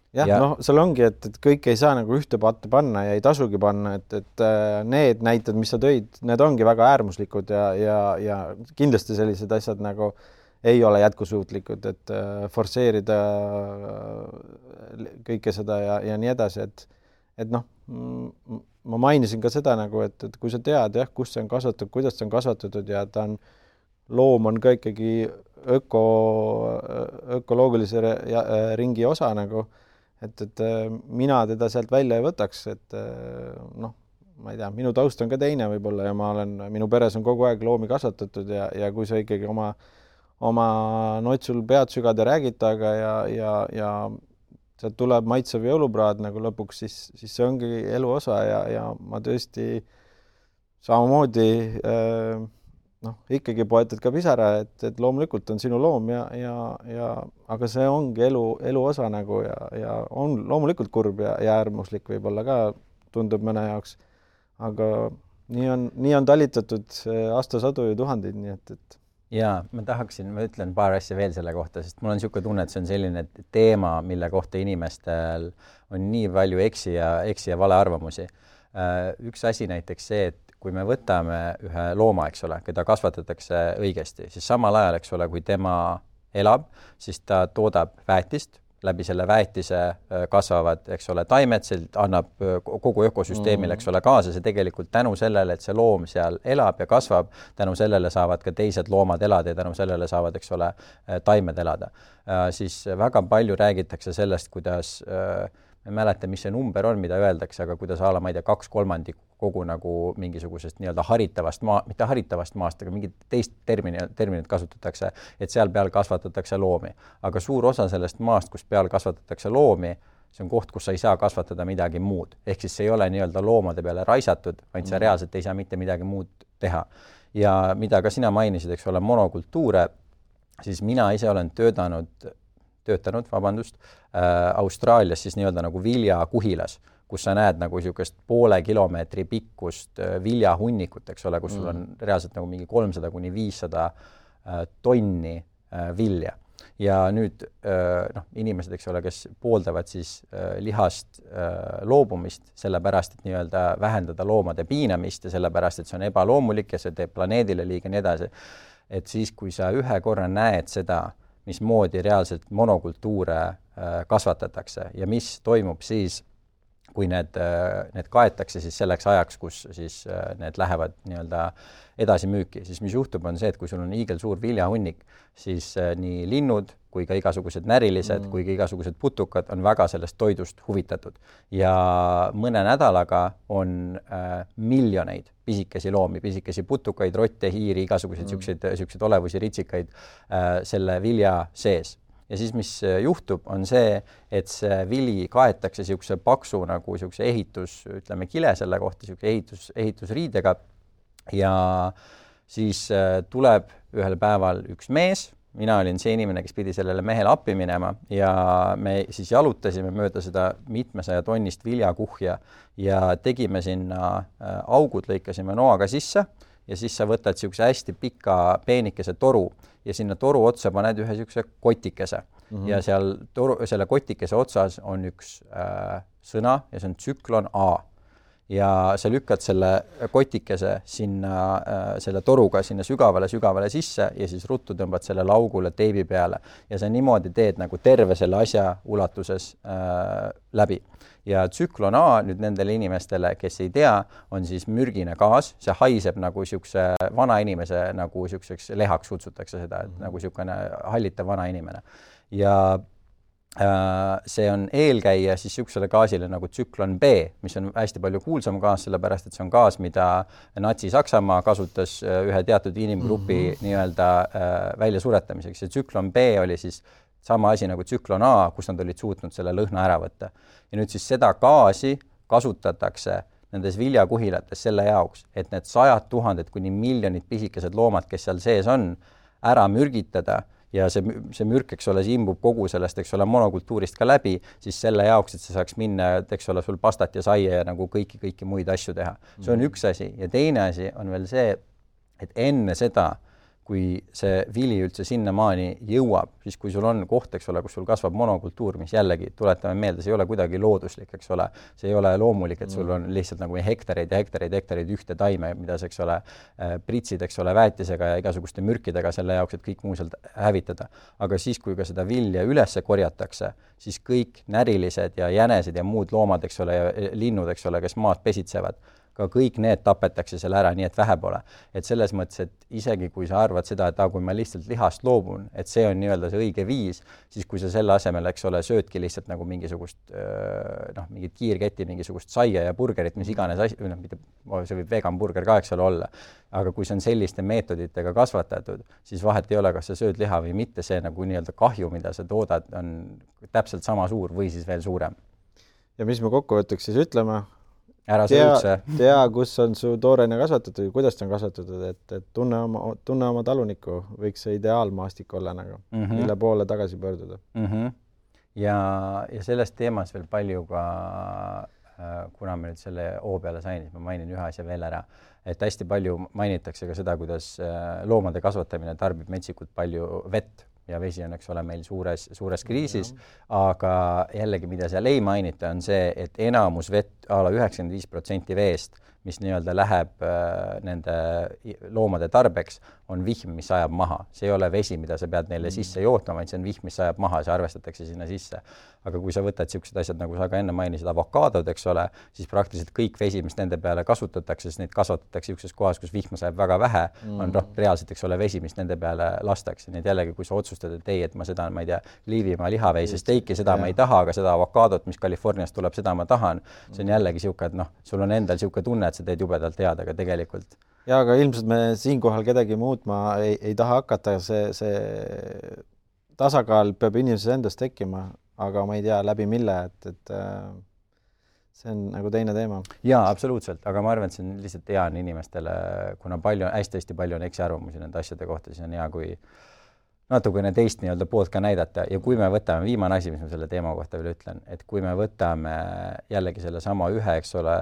Jah, noh, seal ongi, et kõik ei saa nagu ühte patta panna ja ei tasugi panna, et need näited, mis sa tõid, need ongi väga äärmuslikud ja kindlasti sellised asjad nagu ei ole jätkusuutlikud, et forsseerida kõike seda ja nii edasi, et noh, ma mainisin ka seda nagu, et kui sa tead, jah, kus see on kasvatatud, kuidas see on kasvatatud ja loom on ka ikkagi ökoloogilise ringi osa nagu, et mina teda sealt välja ei võtaks, et noh, ma ei tea, minu taust on ka teine võib-olla ja minu peres on kogu aeg loomi kasvatatud ja kui sa ikkagi oma notsul pead sügada räägid taga ja sealt tuleb maitsev jõulupraad nagu lõpuks, siis see ongi elu osa ja ma tõesti samamoodi ikkagi poetad ka pisara, et loomulikult on sinu loom aga see ongi elu osa nagu ja on loomulikult kurb ja äärmuslik võib-olla ka tundub mõne jaoks, aga nii on talitatud aastasadu ja tuhandeid, nii et Jaa, ma ütlen paar asja veel selle kohta, sest mul on niisugune tunne, et see on selline teema, mille kohta inimestel on nii palju eksi ja vale arvamusi. Üks asi näiteks see, et kui me võtame ühe looma, eks ole, keda kasvatatakse õigesti, siis samal ajal, eks ole, kui tema elab, siis ta toodab väetist, läbi selle väetise kasvavad, eks ole, taimed, see annab kogu ökosüsteemile, eks ole, kaasa, see tegelikult tänu sellele, et see loom seal elab ja kasvab, tänu sellele saavad ka teised loomad elada ja tänu sellele saavad, eks ole, taimed elada. Siis väga palju räägitakse sellest, kuidas ma ei mäleta, mis see number on, mida öeldakse, aga kuidas ma ei tea, 2/3 kogu nagu mingisugusest nii-öelda haritavast mitte haritavast maast, aga mingit teist terminit kasutatakse, et seal peal kasvatatakse loomi. Aga suur osa sellest maast, kus peal kasvatatakse loomi, see on koht, kus sa ei saa kasvatada midagi muud. Ehk siis see ei ole nii-öelda loomade peale raisatud, vaid sa reaalselt ei saa mitte midagi muud teha. Ja mida ka sina mainisid, eks ole, monokultuure, siis mina ise olen töötanud, Austraalias siis nii-öelda nagu viljakuhilas, kus sa näed nagu niisugust 0,5 kilomeetri pikkust viljahunnikut, eks ole, kus sul on reaalselt nagu mingi 300–500 tonni vilja. Ja nüüd inimesed, eks ole, kes pooldavad siis lihast loobumist sellepärast, et nii-öelda vähendada loomade piinamist ja sellepärast, et see on ebaloomulik ja see teeb planeedile liiga nii edasi. Et siis, kui sa ühe korra näed seda, mismoodi reaalselt monokultuure kasvatatakse ja mis toimub siis, kui need kaetakse siis selleks ajaks, kus siis need lähevad nii-öelda edasi müüki, siis mis juhtub, on see, et kui sul on hiigelsuur viljahunnik, siis nii linnud kui ka igasugused närilised, kui ka igasugused putukad on väga sellest toidust huvitatud. Ja mõne nädalaga on miljoneid pisikesi loomi, pisikesi putukaid, rotte, hiiri, igasuguseid siukseid olevusi, ritsikaid selle vilja sees. Ja siis, mis juhtub, on see, et see vili kaetakse siukse paksu nagu siukse ütleme kile selle kohta, siuke ehitusriidega ja siis tuleb ühel päeval üks mees, mina olin see inimene, kes pidi sellele mehele appi minema ja me siis jalutasime mööda seda mitmesaja tonnist viljakuhja ja tegime sinna augud, lõikasime noaga sisse ja siis sa võtad siukse hästi pika peenikese toru ja sinna toru otsa paned ühe siukse kotikese ja seal selle kotikese otsas on üks sõna ja see on tsüklon A. Ja sa lükkad selle kotikese sinna selle toruga sinna sügavale sisse ja siis ruttu tõmbad selle laugule teibi peale ja sa niimoodi teed nagu terve selle asja ulatuses läbi. Ja tsüklon A nüüd nendele inimestele, kes ei tea, on siis mürgine gaas, see haiseb nagu siukse vana inimese, nagu siukseks lehaks kutsutakse seda, et nagu siukene hallitav vana inimene. Ja see on eelkäija siis siuksele gaasile nagu tsüklon B, mis on hästi palju kuulsam gaas, sellepärast et see on gaas, mida Natsi-Saksamaa kasutas ühe teatud inimgrupi nii-öelda väljasuretamiseks. Ja tsüklon B oli siis sama asi nagu tsüklon A, kus nad olid suutnud selle lõhna ära võtta. Ja nüüd siis seda gaasi kasutatakse nendes viljakuhilates selle jaoks, et need 100 000 kuni miljonid pisikesed loomad, kes seal sees on, ära mürgitada ja see mürk, eks ole, see imbub kogu sellest, eks ole, monokultuurist ka läbi, siis selle jaoks, et see saaks minna, eks ole, sul pastat ja saia ja nagu kõiki muid asju teha. See on üks asi ja teine asi on veel see, et enne seda, kui see vili üldse sinnamaani jõuab, siis kui sul on koht, eks ole, kus sul kasvab monokultuur, mis jällegi, tuletame meelde, see ei ole kuidagi looduslik, eks ole, see ei ole loomulik, et sul on lihtsalt nagu hektareid ja hektareid ühte taime, mida see, eks ole, pritsid, eks ole, väetisega ja igasuguste mürkidega selle jaoks, et kõik muu sealt hävitada. Aga siis, kui ka seda vilja ülesse korjatakse, siis kõik närilised ja jänesed ja muud loomad, eks ole, ja linnud, eks ole, kes maad pesitsevad, ka kõik need tapetakse selle ära, nii et vähe pole. Et selles mõttes, et isegi kui sa arvad seda, et kui ma lihtsalt lihast loobun, et see on nii-öelda see õige viis, siis kui sa selle asemel, eks ole, söödki lihtsalt nagu mingisugust mingit kiirketti, mingisugust saia ja burgerit, mis iganes asi, see võib vegan burger ka, eks ole, olla. Aga kui see on selliste meetoditega kasvatatud, siis vahet ei ole, kas sa sööd liha või mitte, see nagu nii-öelda kahju, mida sa toodad, on täpselt sama suur või siis veel suurem. Ja mis me kokkuvõtteks siis ütleme? Tea, kus on su toorene kasvatatud ja kuidas ta on kasvatatud, et tunne oma talunikku, võiks see ideaalmaastik olla nagu, mille poole tagasi pöörduda. Ja sellest teemas veel palju ka, kuna me nüüd selle O peale sain, siis ma mainin ühe asja veel ära, et hästi palju mainitakse ka seda, kuidas loomade kasvatamine tarbib metsikult palju vett ja vesi on, eks ole, meil suures kriisis, aga jällegi, mida seal ei mainita, on see, et enamus vett, 95% veest, mis nii-öelda läheb nende loomade tarbeks, on vihm, mis ajab maha. See ei ole vesi, mida sa pead neile sisse jootma, vaid see on vihm, mis ajab maha, see arvestatakse sinna sisse. Aga kui sa võtad siuksed asjad, nagu sa ka enne mainisid, avokaadod, eks ole, siis praktiliselt kõik vesi, mis nende peale kasutatakse, siis neid kasvatatakse siukses kohas, kus vihma sajab väga vähe, on reaalselt, eks ole, vesi, mis nende peale lastakse. Nii et jällegi, kui sa otsustad, et ei, et ma seda, ma ei tea, Liivimaa lihaveise steiki, seda ma ei taha, aga seda avokaadot, mis Californiast tuleb, seda ma tahan. See on jällegi siuke, et sul on endal siuke tunne, et sa teed jubedalt head, aga tegelikult. Ja, aga ilmselt me siinkohal kedagi muutma ei taha hakata. See tasakaal peab inimeses endast tekkima, aga ma ei tea läbi mille, et see on nagu teine teema. Jaa, absoluutselt, aga ma arvan, et see on lihtsalt hea inimestele, kuna hästi palju on eksiarvamusi nende asjade kohta, siis on hea, kui natukene teist nii-öelda poolt ka näidata ja kui me võtame, viimane asi, mis ma selle teema kohta veel ütlen, et kui me võtame jällegi selle sama ühe, eks ole,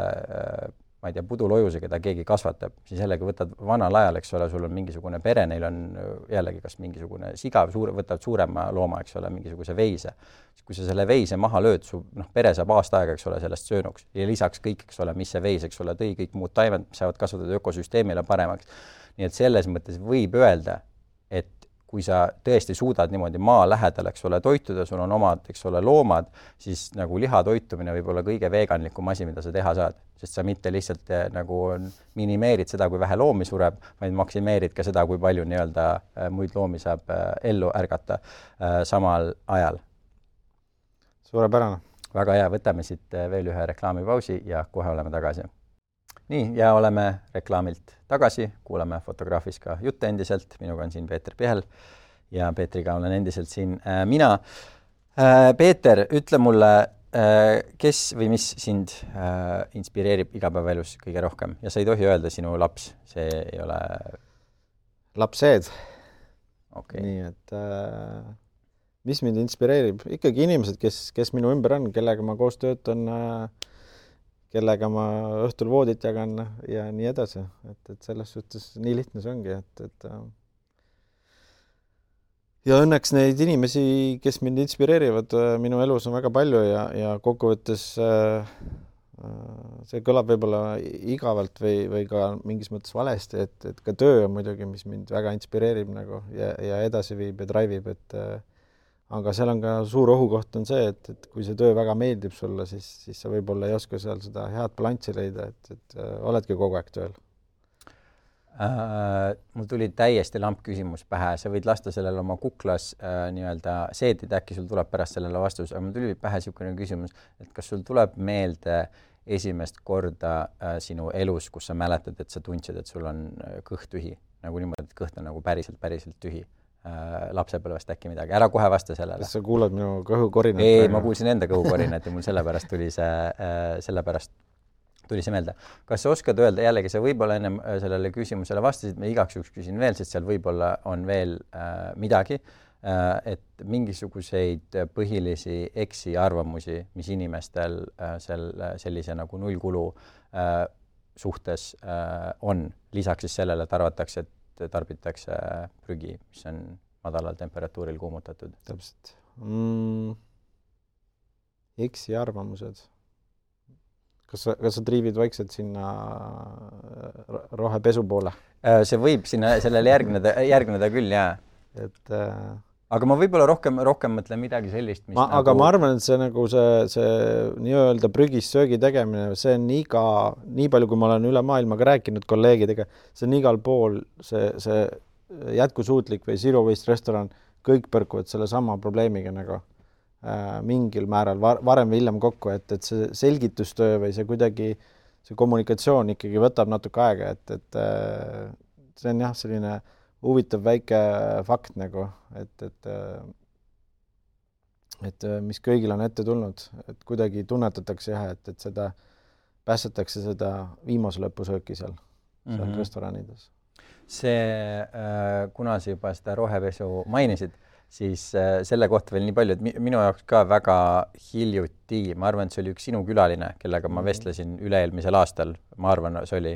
ma ei tea, pudulojuse, keda keegi kasvatab, siis jällegi võtad vanal ajal, eks ole, sul on mingisugune pere, neil on jällegi kas mingisugune siga, võtad suurema looma, eks ole, mingisuguse veise. Kui sa selle veise maha lööd, su pere saab aasta aega, eks ole, sellest söönuks ja lisaks kõik, eks ole, mis see veis, eks ole, tõi kõik muud taimed, mis saavad kasvatada ökosüsteemile paremaks. Nii et selles mõttes võib öelda, et kui sa tõesti suudad niimoodi maa lähedal, eks ole, toituda, sul on omad, eks ole, loomad, siis nagu liha toitumine võib olla kõige veeganlikum asi, mida sa teha saad, sest sa mitte lihtsalt nagu minimeerid seda, kui vähe loomi sureb, vaid maksimeerid ka seda, kui palju nii-öelda muid loomi saab ellu ärgata samal ajal. Suurepärane. Väga hea, võtame siit veel ühe reklaamipausi ja kohe oleme tagasi. Nii, ja oleme reklaamilt tagasi, kuulame Fotograafis ka jutte endiselt, minuga on siin Peeter Pihel ja Peetriga olen endiselt siin mina. Peeter, ütle mulle, kes või mis sind inspireerib igapäevaelus kõige rohkem ja sa ei tohi öelda sinu laps, see ei ole... Lapsed. Okay. Nii, et mis mind inspireerib? Ikkagi inimesed, kes minu ümber on, kellega ma koos töötan, kellega ma õhtul voodit jagan ja nii edasi. Et selles suhtes nii lihtne see ongi. Ja õnneks neid inimesi, kes mind inspireerivad minu elus on väga palju ja kokkuvõttes see kõlab võib-olla igavalt või ka mingis mõttes valesti, et ka töö on muidugi, mis mind väga inspireerib nagu ja edasi viib ja drive'ib, aga seal on ka suur ohukoht on see, et kui see töö väga meeldib sulle, siis sa võib-olla ei oska seal seda head balanssi leida, et oledki kogu aeg tööl. Mul tuli täiesti lamp küsimus pähe, sa võid lasta sellele oma kuklas nii-öelda seedida, äkki sul tuleb pärast sellele vastus, aga mul tuli pähe niisugune küsimus, et kas sul tuleb meelde esimest korda sinu elus, kus sa mäletad, et sa tundsid, et sul on kõht tühi, nagu niimoodi, et kõht on nagu päriselt tühi. Lapsepõlvest äkki midagi. Ära kohe vasta sellele. Kas sa kuulad minu kõhukorinat? Ei, ma kuulsin enda kõhukorinat ja mul sellepärast tuli see meelde. Kas sa oskad öelda, jällegi sa võib-olla ennem sellele küsimusele vastasid, ma igaks juhuks küsin veel, sest seal võib-olla on veel midagi, et mingisuguseid põhilisi eksiarvamusi, mis inimestel sellise nagu nullkulu suhtes on, lisaks siis sellele, et arvatakse, et tarbitakse prügi, mis on madalal temperatuuril kuumutatud. Täpselt. Eksiarvamused. Kas sa triivid vaikselt sinna rohepesu poole? See võib sinna sellele järgneda küll, jaa. Aga ma võib-olla rohkem mõtlen midagi sellist, mis aga ma arvan, et see nagu see nii-öelda prügis söögi tegemine, see on nii palju, kui ma olen üle maailmaga rääkinud kolleegidega, see on igal pool see jätkusuutlik või zero waste restoran, kõik põrkuvad selle sama probleemiga nagu mingil määral varem või hiljem kokku, et see selgitustöö või see kuidagi, see kommunikatsioon ikkagi võtab natuke aega, et see on jah, selline huvitav väike fakt nagu, et mis kõigil on ette tulnud, et kuidagi tunnetatakse jah, et seda päästetakse seda viimase lõpusööki seal restoranides. Kuna sa juba seda rohepesu mainisid, siis selle kohta veel nii palju, et minu jaoks ka väga hiljuti, ma arvan, et see oli üks sinu külaline, kellega ma vestlesin üle-eelmisel aastal, ma arvan, see oli,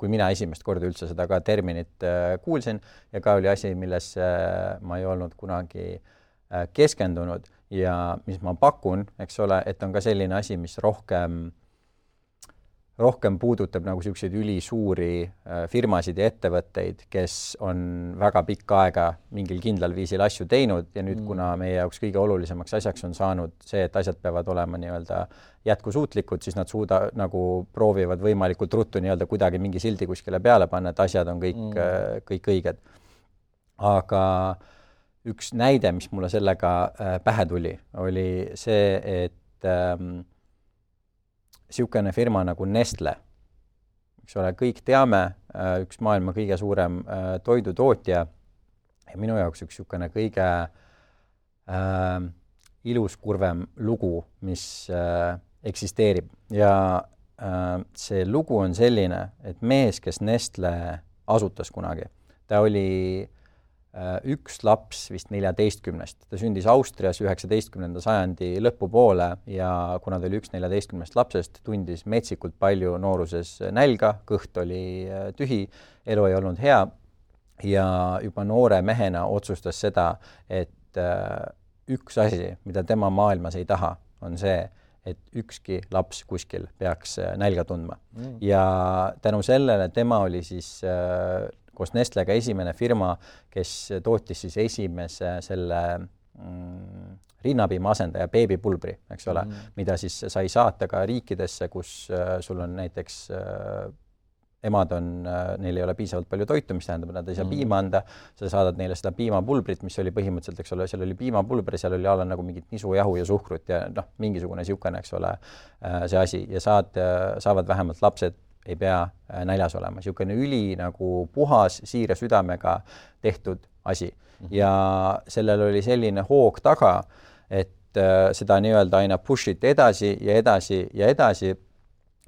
kui mina esimest korda üldse seda ka terminit kuulsin ja ka oli asi, milles ma ei olnud kunagi keskendunud ja mis ma pakun, eks ole, et on ka selline asi, mis rohkem puudutab nagu selliseid ülisuuri firmasid ja ettevõtteid, kes on väga pikka aega mingil kindlal viisil asju teinud ja nüüd, kuna meie jaoks kõige olulisemaks asjaks on saanud see, et asjad peavad olema nii-öelda jätkusuutlikud, siis nad nagu proovivad võimalikult ruttu nii-öelda kuidagi mingi sildi kuskile peale panna, et asjad on kõik õiged. Aga üks näide, mis mulle sellega pähe tuli, oli see, et niisugune firma nagu Nestle, eks ole, kõik teame, üks maailma kõige suurem toidutootja ja minu jaoks üks niisugune kõige iluskurvem lugu, mis eksisteerib. Ja see lugu on selline, et mees, kes Nestle asutas kunagi, ta oli üks laps vist 14. Ta sündis Austrias 19. sajandi lõpupoole ja kuna ta oli üks 14 lapsest, tundis metsikult palju nooruses nälga, kõht oli tühi, elu ei olnud hea ja juba noore mehena otsustas seda, et üks asi, mida tema maailmas ei taha, on see, et ükski laps kuskil peaks nälga tundma. Ja tänu sellele tema oli siis koos Nestlega esimene firma, kes tootis siis esimese selle rinnapiima asendaja beebipulbri, eks ole, mida siis sai saata ka riikidesse, kus sul on näiteks emad on, neil ei ole piisavalt palju toitu, mis tähendab, et nad ei saa piima anda, sa saadad neile seda piimapulbrit, mis oli põhimõtteliselt, eks ole, seal oli piimapulber, seal oli alla nagu mingit nisujahu ja suhkrut ja noh, mingisugune siukene, eks ole, see asi ja saavad vähemalt lapsed, ei pea näljas olema. Siukene üli nagu puhas, siire südamega tehtud asi. Ja sellel oli selline hoog taga, et seda nii-öelda aina push'it edasi ja edasi ja edasi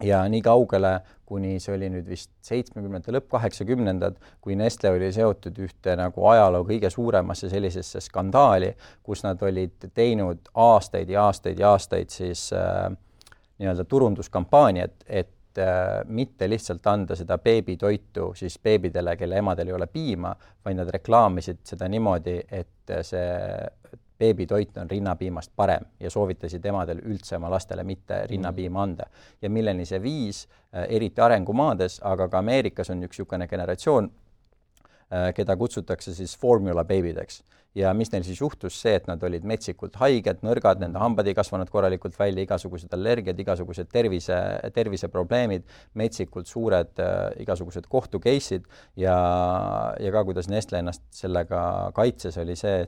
ja nii kaugele, kuni see oli nüüd vist 70. lõpp 80. kui Nestle oli seotud ühte nagu ajaloo kõige suuremasse sellisesse skandaali, kus nad olid teinud aastaid ja aastaid ja aastaid siis nii-öelda turunduskampaaniat, et mitte lihtsalt anda seda beebitoitu siis beebidele, kelle emadel ei ole piima, vaid nad reklaamisid seda niimoodi, et see beebitoit on rinnapiimast parem ja soovitasid emadel üldse oma lastele mitte rinnapiima anda. Ja milleni see viis, eriti arengumaades, aga ka Ameerikas on üks niisugune generatsioon, keda kutsutakse siis formula beebideks. Ja mis neil siis juhtus see, et nad olid metsikult haiged, nõrgad, nende hambad ei kasvanud korralikult välja, igasugused allergiad, igasugused terviseprobleemid, metsikult suured igasugused kohtukeisid ja ka kuidas Nestle ennast sellega kaitses, oli see,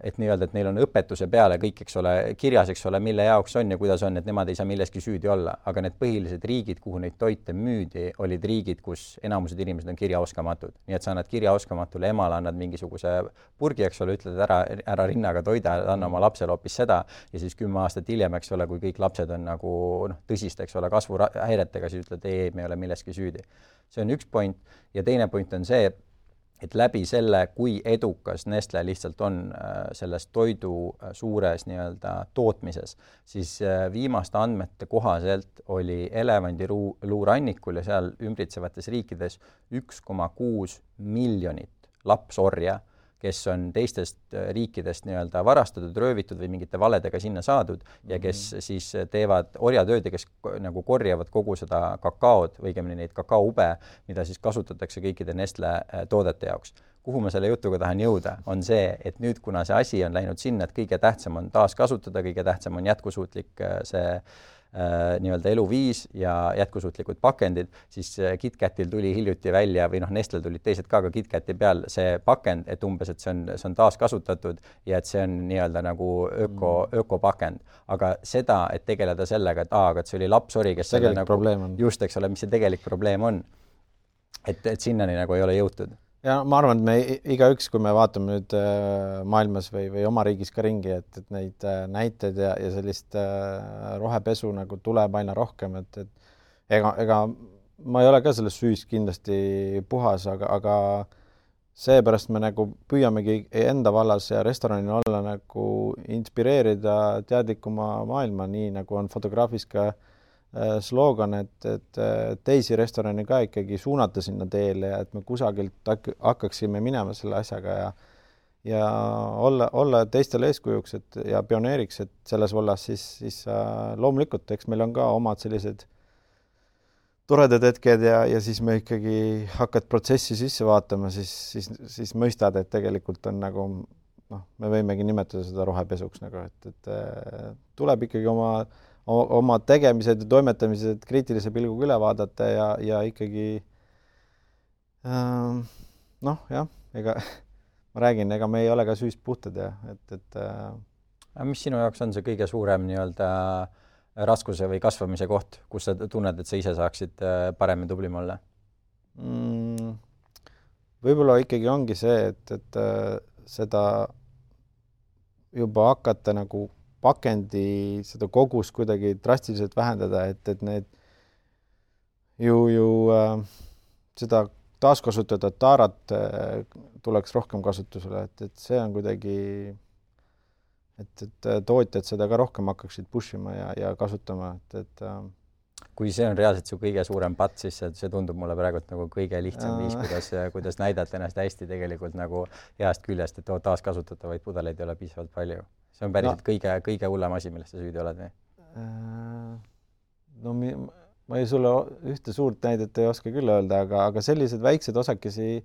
et nii-öelda, et neil on õpetuse peale kõik, eks ole, kirjas, eks ole, mille jaoks on ja kuidas on, et nemad ei saa milleski süüdi olla. Aga need põhilised riigid, kuhu neid toite müüdi, olid riigid, kus enamused inimesed on kirjaoskamatud. Nii et sa annad kirjaoskamatule emale, annad mingisuguse purgi, eks ole, ütled ära rinnaga toida, anna oma lapsele hoopis seda ja siis 10 aastat hiljem, eks ole, kui kõik lapsed on nagu tõsist, eks ole, kasvuhäiretega, siis ütled, ei, me ei ole milleski süüdi. See on üks point ja teine point on see, et läbi selle, kui edukas Nestle lihtsalt on selles toidu suures nii-öelda tootmises, siis viimaste andmete kohaselt oli elevandiluurannikul ja seal ümbritsevates riikides 1,6 miljonit lapsorja, kes on teistest riikidest nii-öelda varastatud, röövitud või mingite valedega sinna saadud ja kes siis teevad orjatööd ja kes nagu korjavad kogu seda kakaod või õigemini neid kakaoube, mida siis kasutatakse kõikide Nestle toodete jaoks. Kuhu ma selle jutuga tahan jõuda, on see, et nüüd, kuna see asi on läinud sinna, et kõige tähtsam on taaskasutada, kõige tähtsam on jätkusuutlik see nii-öelda eluviis ja jätkusuutlikud pakendid, siis KitKatil tuli hiljuti välja või Nestlel tulid teised ka KitKati peal see pakend, et umbes, et see on taaskasutatud ja et see on nii-öelda nagu ökopakend. Aga seda, et tegeleda sellega, et aga see oli lapsori, kes selle nagu, just, eks ole, mis see tegelik probleem on, et sinnani nagu ei ole jõutud. Ja ma arvan, et me igaüks, kui me vaatame nüüd maailmas või oma riigis ka ringi, et neid näiteid ja sellist rohepesu nagu tuleb aina rohkem, et ega ma ei ole ka selles süüs kindlasti puhas, aga seepärast me nagu püüamegi enda vallas ja restoranil olla nagu inspireerida teadlikuma maailma, nii nagu on fotograafis ka slogan, et teisi restorani ka ikkagi suunata sinna teele ja et me kusagilt hakkaksime minema selle asjaga ja olla teistele eeskujuks ja pioneeriks, et selles vallas siis loomulikult, eks meil on ka omad sellised toredad hetked ja siis me ikkagi hakkad protsessi sisse vaatama, siis mõistad, et tegelikult on nagu, me võimegi nimetada seda rohepesuks nagu, et tuleb ikkagi oma tegemised ja toimetamised kriitilise pilguga üle vaadata ja ikkagi ega ma räägin, ega me ei ole ka süüst puhtad ja mis sinu jaoks on see kõige suurem nii-öelda raskuse või kasvamise koht, kus sa tunned, et sa ise saaksid paremini tublim olla? Võib-olla ikkagi ongi see, et seda juba hakata nagu pakendi seda kogust kuidagi drastiliselt vähendada, et need seda taaskasutada taarat tuleks rohkem kasutusele, et see on kuidagi, et tootjad seda ka rohkem hakkaksid pushima ja kasutama, et kui see on reaalselt su kõige suurem patt, siis see tundub mulle praegu nagu kõige lihtsam viis, kuidas näidata ennast hästi tegelikult nagu heast küljest, et taaskasutatavaid pudeleid ei ole piisavalt palju. See on päriselt kõige hullem asi, millest sa süüdi oled või? No ma ei sulle ühte suurt näidet ei oska küll öelda, aga sellised väiksed osakesi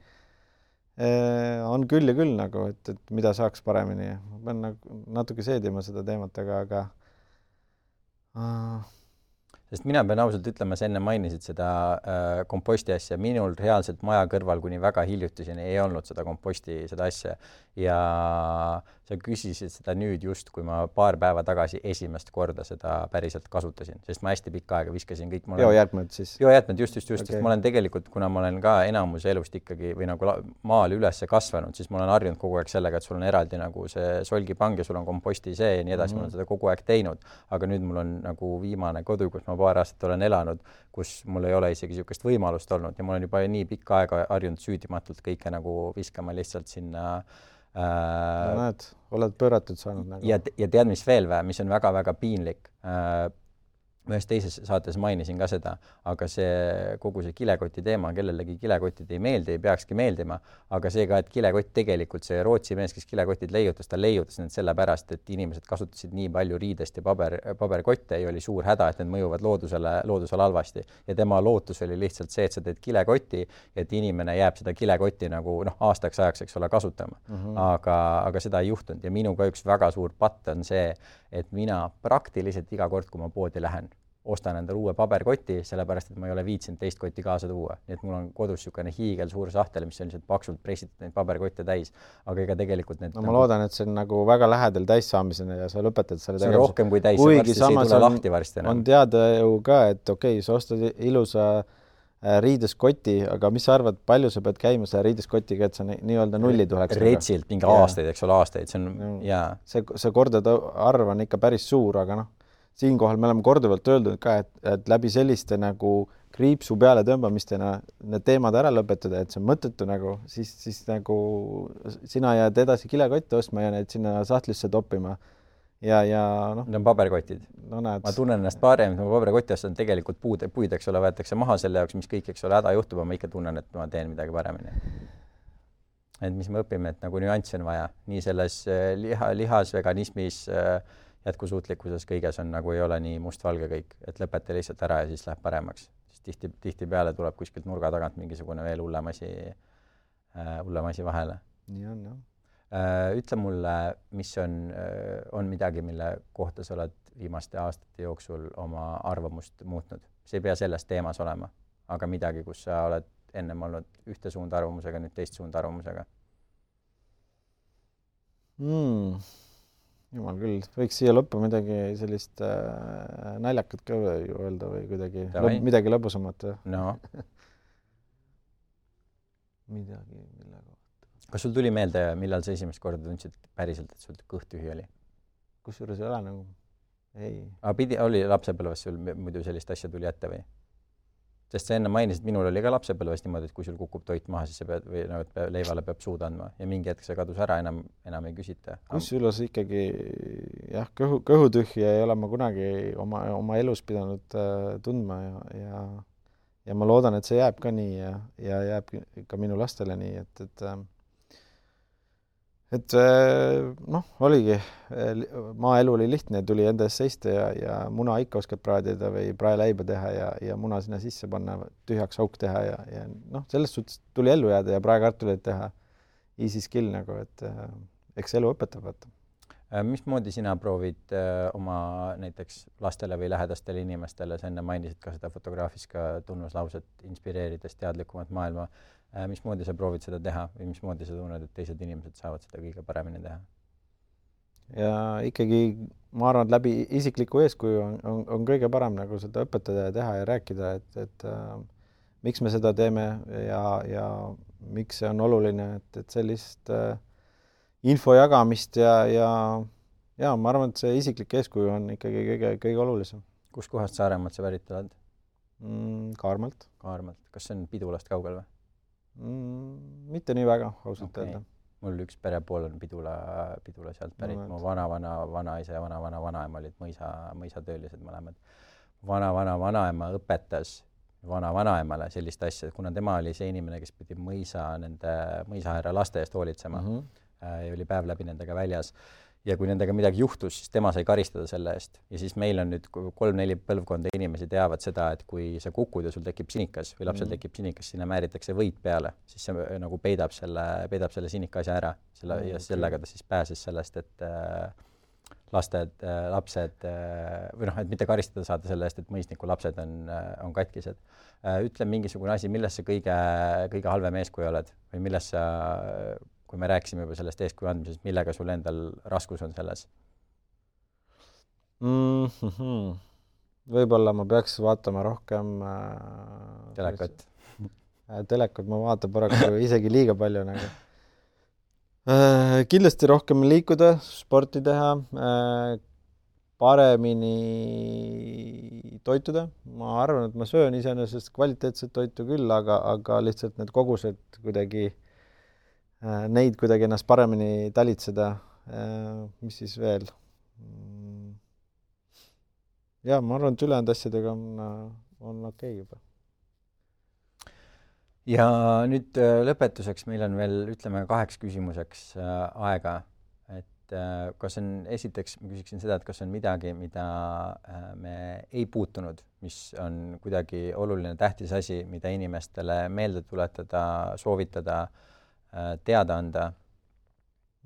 on küll ja küll nagu, et mida saaks paremini. Ma pean nagu natuke seedima seda teemat, aga sest mina pean ausalt ütlema, sa enne mainisid seda komposti asja. Minul reaalselt maja kõrval kuni väga hiljutiseni ei olnud seda komposti, seda asja. Ja sa küsisid seda nüüd just, kui ma paar päeva tagasi esimest korda seda päriselt kasutasin, sest ma hästi pikka aega viskasin kõik. Biojäätmed siis? Biojäätmed, just. Sest ma olen tegelikult, kuna ma olen ka enamus elust ikkagi või nagu maal üles kasvanud, siis ma olen harjunud kogu aeg sellega, et sul on eraldi nagu see solgipang ja sul on komposti see ja nii edasi. Ma olen seda kogu aeg teinud, aga nüüd mul on nagu viimane kodu, kus ma paar aastat olen elanud, kus mul ei ole isegi niisugust võimalust olnud ja ma olen juba nii pikka aega harjunud süüdimatult kõike nagu viskama lihtsalt sinna näed, oled pööratud saanud nagu. Ja tead, mis veel või, mis on väga-väga piinlik. Ühes teises saates mainisin ka seda, aga see kogu see kilekoti teema, kellelegi kilekotid ei meeldi, ei peakski meeldima, aga see ka, et kilekott tegelikult, see Rootsi mees, kes kilekotid leiutas, ta leiutas need sellepärast, et inimesed kasutasid nii palju riidest ja paberkotte ja oli suur häda, et need mõjuvad loodusele halvasti. Ja tema lootus oli lihtsalt see, et sa teed kilekoti, et inimene jääb seda kilekotti nagu aastaks ajaks, eks ole, kasutama. Aga seda ei juhtunud ja minuga üks väga suur patt on see, et mina praktiliselt iga kord, kui ma poodi lähen, ostan endale uue paberkoti, sellepärast, et ma ei ole viitsinud teist kotti kaasa tuua. Nii et mul on kodus niisugune hiigel suur sahtel, mis on lihtsalt paksult pressitud neid paberkotte täis. Aga ega tegelikult need... No ma loodan, et see on nagu väga lähedal täissaamisena ja sa lõpetad selle tegevuse. See on rohkem kui täis, varsti see ei tule lahti varsti. On teada ju ka, et okei, sa ostad ilusa riideskoti, aga mis sa arvad, palju sa pead käima selle riideskotiga, et sa nii-öelda nulli tuleks? Retsilt mingi aastaid, eks ole, aastaid. See on, jaa. See kordade arv on ikka päris suur, aga siinkohal me oleme korduvalt öeldud ka, et läbi selliste nagu kriipsu peale tõmbamistena need teemad ära lõpetada, et see on mõttetu nagu, siis nagu sina jääd edasi kilekotte ostma ja need sinna sahtlisse toppima. Ja noh. Need on paberkotid. No näed. Ma tunnen ennast parem, et ma paberkotti ostan tegelikult puid, eks ole, võetakse maha selle jaoks, mis kõik, eks ole, häda juhtub, ma ikka tunnen, et ma teen midagi paremini. Et mis me õpime, et nagu nüanssi on vaja. Nii selles lihas, veganismis, jätkusuutlikkuses kõiges on nagu ei ole nii mustvalge kõik, et lõpeta lihtsalt ära ja siis läheb paremaks. Siis tihti peale tuleb kuskilt nurga tagant mingisugune veel hullem asi vahele. Nii on, jah. Ütle mulle, mis on midagi, mille kohta sa oled viimaste aastate jooksul oma arvamust muutnud. See ei pea selles teemas olema, aga midagi, kus sa oled ennem olnud ühte suunda arvamusega, nüüd teist suunda arvamusega. Jumal küll, võiks siia lõppu midagi sellist naljakat ka öelda või kuidagi midagi lõbusamat. No. Midagi, mille kohta. Kas sul tuli meelde, millal sa esimest korda tundsid päriselt, et sul kõht tühi oli? Kusjuures ei ole nagu, ei. Aga oli lapsepõlves sul muidu sellist asja tuli ette või? Sest sa enne mainisid, minul oli ka lapsepõlves niimoodi, et kui sul kukub toit maha, siis sa pead, või leivale peab suud andma ja mingi hetk see kadus ära, enam ei küsita. Kusjuures ikkagi, jah, kõhutühja ei ole ma kunagi oma elus pidanud tundma ja ma loodan, et see jääb ka nii ja jääb ka minu lastele nii, et noh, oligi, maaelu oli lihtne, tuli enda ees seista ja muna ikka oskad praadida või praeleiba teha ja muna sinna sisse panna, tühjaks auk teha ja noh, sellest suhtes tuli ellu jääda ja praekartuleid teha easy skill nagu, et eks elu õpetab. Mismoodi sina proovid oma näiteks lastele või lähedastele inimestele, sa enne mainisid ka seda fotograafis ka tunnuslauset inspireerides teadlikumat maailma, mismoodi sa proovid seda teha või mismoodi sa tunned, et teised inimesed saavad seda kõige paremini teha? Ja ikkagi ma arvan, et läbi isikliku eeskuju on kõige parem nagu seda õpetada ja teha ja rääkida, et miks me seda teeme ja miks see on oluline, et sellist info jagamist ja ma arvan, et see isiklik eeskuju on ikkagi kõige olulisem. Kus kohast Saaremaalt sa pärit oled? Kaarmalt. Kas see on Pidulast kaugel või? Mitte nii väga, ausalt öelda. Mul üks perepool on Pidula sealt pärit. Mu vanaisa ja vanaema olid mõisatöölised mõlemad. Vanaema õpetas vanaemale sellist asja, kuna tema oli see inimene, kes pidi mõisahärra laste eest hoolitsema ja oli päev läbi nendega väljas. ja kui nendega midagi juhtus, siis tema sai karistada selle eest. Ja siis meil on nüüd 3-4 põlvkonda inimesi teavad seda, et kui sa kukud ja sul tekib sinikas või lapsel tekib sinikas, sinna määritakse võit peale, siis see nagu peidab selle sinika asja ära. Ja sellega ta siis pääses sellest, et lapsed või et mitte karistada saada selle eest, et mõisniku lapsed on katkised. Ütle mingisugune asi, milles sa kõige halvem eeskuju oled või milles sa, kui me rääkisime juba sellest eeskuju andmisest, millega sul endal raskus on selles? Võib-olla ma peaks vaatama rohkem telekat. Telekat ma vaatan paraku isegi liiga palju nagu. Kindlasti rohkem liikuda, sporti teha, paremini toituda. Ma arvan, et ma söön iseenesest kvaliteetset toitu küll, aga lihtsalt need kogused kuidagi neid kuidagi ennast paremini talitseda. Mis siis veel? Ja, ma arvan, et ülejäänud asjadega on okei juba. Ja nüüd lõpetuseks meil on veel, ütleme, 8 küsimuseks aega. Et kas on, esiteks ma küsiksin seda, et kas on midagi, mida me ei puutunud, mis on kuidagi oluline tähtis asi, mida inimestele meelde tuletada, soovitada, teada anda?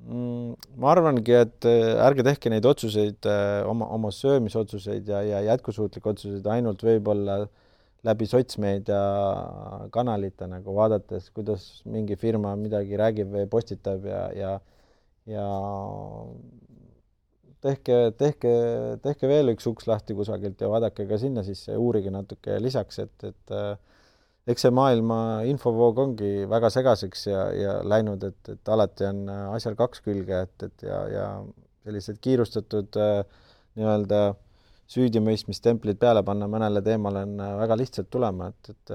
Ma arvangi, et ärge tehke neid otsuseid, oma söömisotsuseid ja jätkusuutlikke otsuseid ainult võib-olla läbi sotsmeedia kanalite nagu vaadates, kuidas mingi firma midagi räägib või postitab ja tehke veel üks uks lahti kusagilt ja vaadake ka sinna sisse, uurige natuke lisaks, et eks see maailma infovoog ongi väga segaseks ja läinud, et alati on asjal 2 külge, ja sellised kiirustatud nii-öelda süüdimõistmistemplid peale panna mõnele teemale on väga lihtsalt tulema, et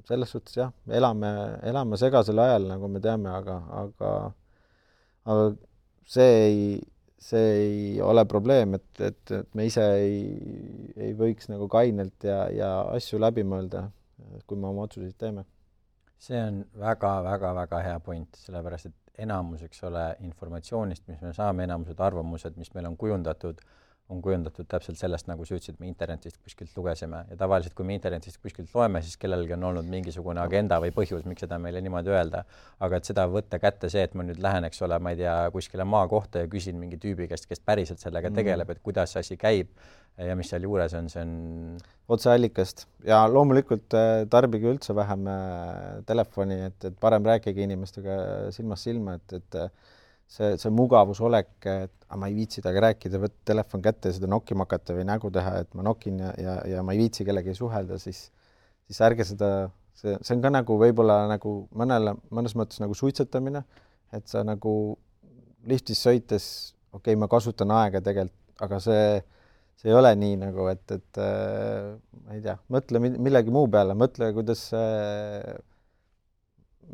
selles suhtes jah, elame segasel ajal, nagu me teame, aga see ei ole probleem, et me ise ei võiks nagu kainelt ja asju läbi mõelda, kui me oma otsuseid teeme. See on väga hea point, sellepärast, et enamus, eks ole, informatsioonist, mis me saame, enamused arvamused, mis meil on kujundatud täpselt sellest, nagu sa ütlesid, me internetist kuskilt lugesime. Ja tavaliselt, kui me internetist kuskilt loeme, siis kellelgi on olnud mingisugune agenda või põhjus, miks seda meile niimoodi öelda. Aga et seda võtta kätte see, et ma nüüd lähen, eks ole, ma ei tea, kuskile maa kohta ja küsin mingi tüübi käest, kes päriselt sellega tegeleb, et kuidas see asi käib ja mis seal juures on, see on otseallikast. Ja loomulikult tarbige üldse vähem telefoni, et parem rääkige inimestega silmast silma, et see mugavusolek, et ma ei viitsi temaga rääkida, võtta telefon kätte ja seda nokkima hakata või nägu teha, et ma nokin ja ma ei viitsi kellegi suhelda, siis ärge seda, see on ka nagu võib-olla nagu mõnes mõttes nagu suitsetamine, et sa nagu liftis sõites, okei, ma kasutan aega tegelikult, aga see ei ole nii nagu, et ma ei tea, mõtle millegi muu peale, mõtle, kuidas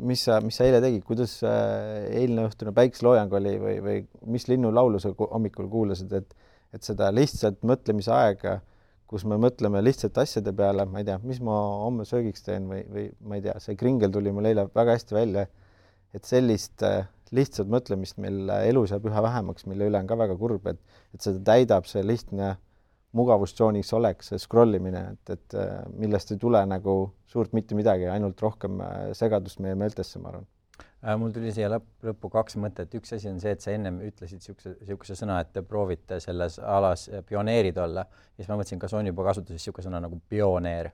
mis sa eile tegid, kuidas eilne õhtune päikseloojang oli või mis linnulaulu sa hommikul kuulasid, et seda lihtsalt mõtlemise aega, kus me mõtleme lihtsalt asjade peale, ma ei tea, mis ma homme söögiks teen või ma ei tea, see kringel tuli mul eile väga hästi välja, et sellist lihtsalt mõtlemist meil elus jääb üha vähemaks, mille üle on ka väga kurb, et seda täidab see lihtne mugavustsooniks oleks see scrollimine, et millest ei tule nagu suurt mitte midagi, ainult rohkem segadust meie meeltesse, ma arvan. Mul tuli siia lõppu 2 mõtet. Üks asi on see, et sa ennem ütlesid siukse sõna, et te proovite selles alas pioneerid olla. Ja siis ma mõtlesin, kas on juba kasutuses siuke sõna nagu pioneer.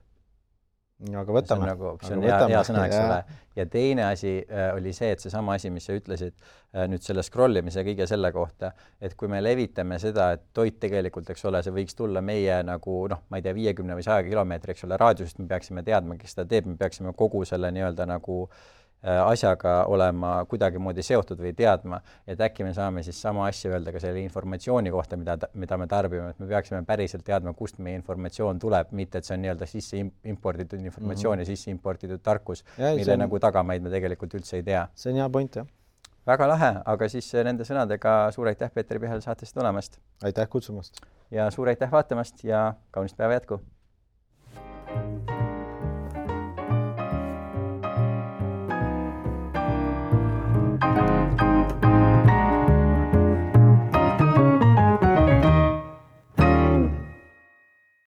Aga võtame. See on hea sõna, eks ole. Ja teine asi oli see, et seesama asi, mis sa ütlesid nüüd selle scrollimise kõige selle kohta, et kui me levitame seda, et toit tegelikult, eks ole, see võiks tulla meie nagu, ma ei tea, 50 või 100 kilomeetri, eks ole, raadiusest, me peaksime teadma, kes seda teeb, me peaksime kogu selle nii-öelda nagu asjaga olema kuidagimoodi seotud või teadma, et äkki me saame siis sama asja öelda ka selle informatsiooni kohta, mida me tarbime, et me peaksime päriselt teadma, kust meie informatsioon tuleb, mitte et see on nii-öelda sisse imporditud informatsioon ja sisse imporditud tarkus, mille nagu tagamaid me tegelikult üldse ei tea. See on hea point, jah. Väga lahe, aga siis nende sõnadega suur aitäh Peeter Pihel saatest tulemast. Aitäh kutsumast. Ja suur aitäh vaatamast ja kaunist päeva jätku.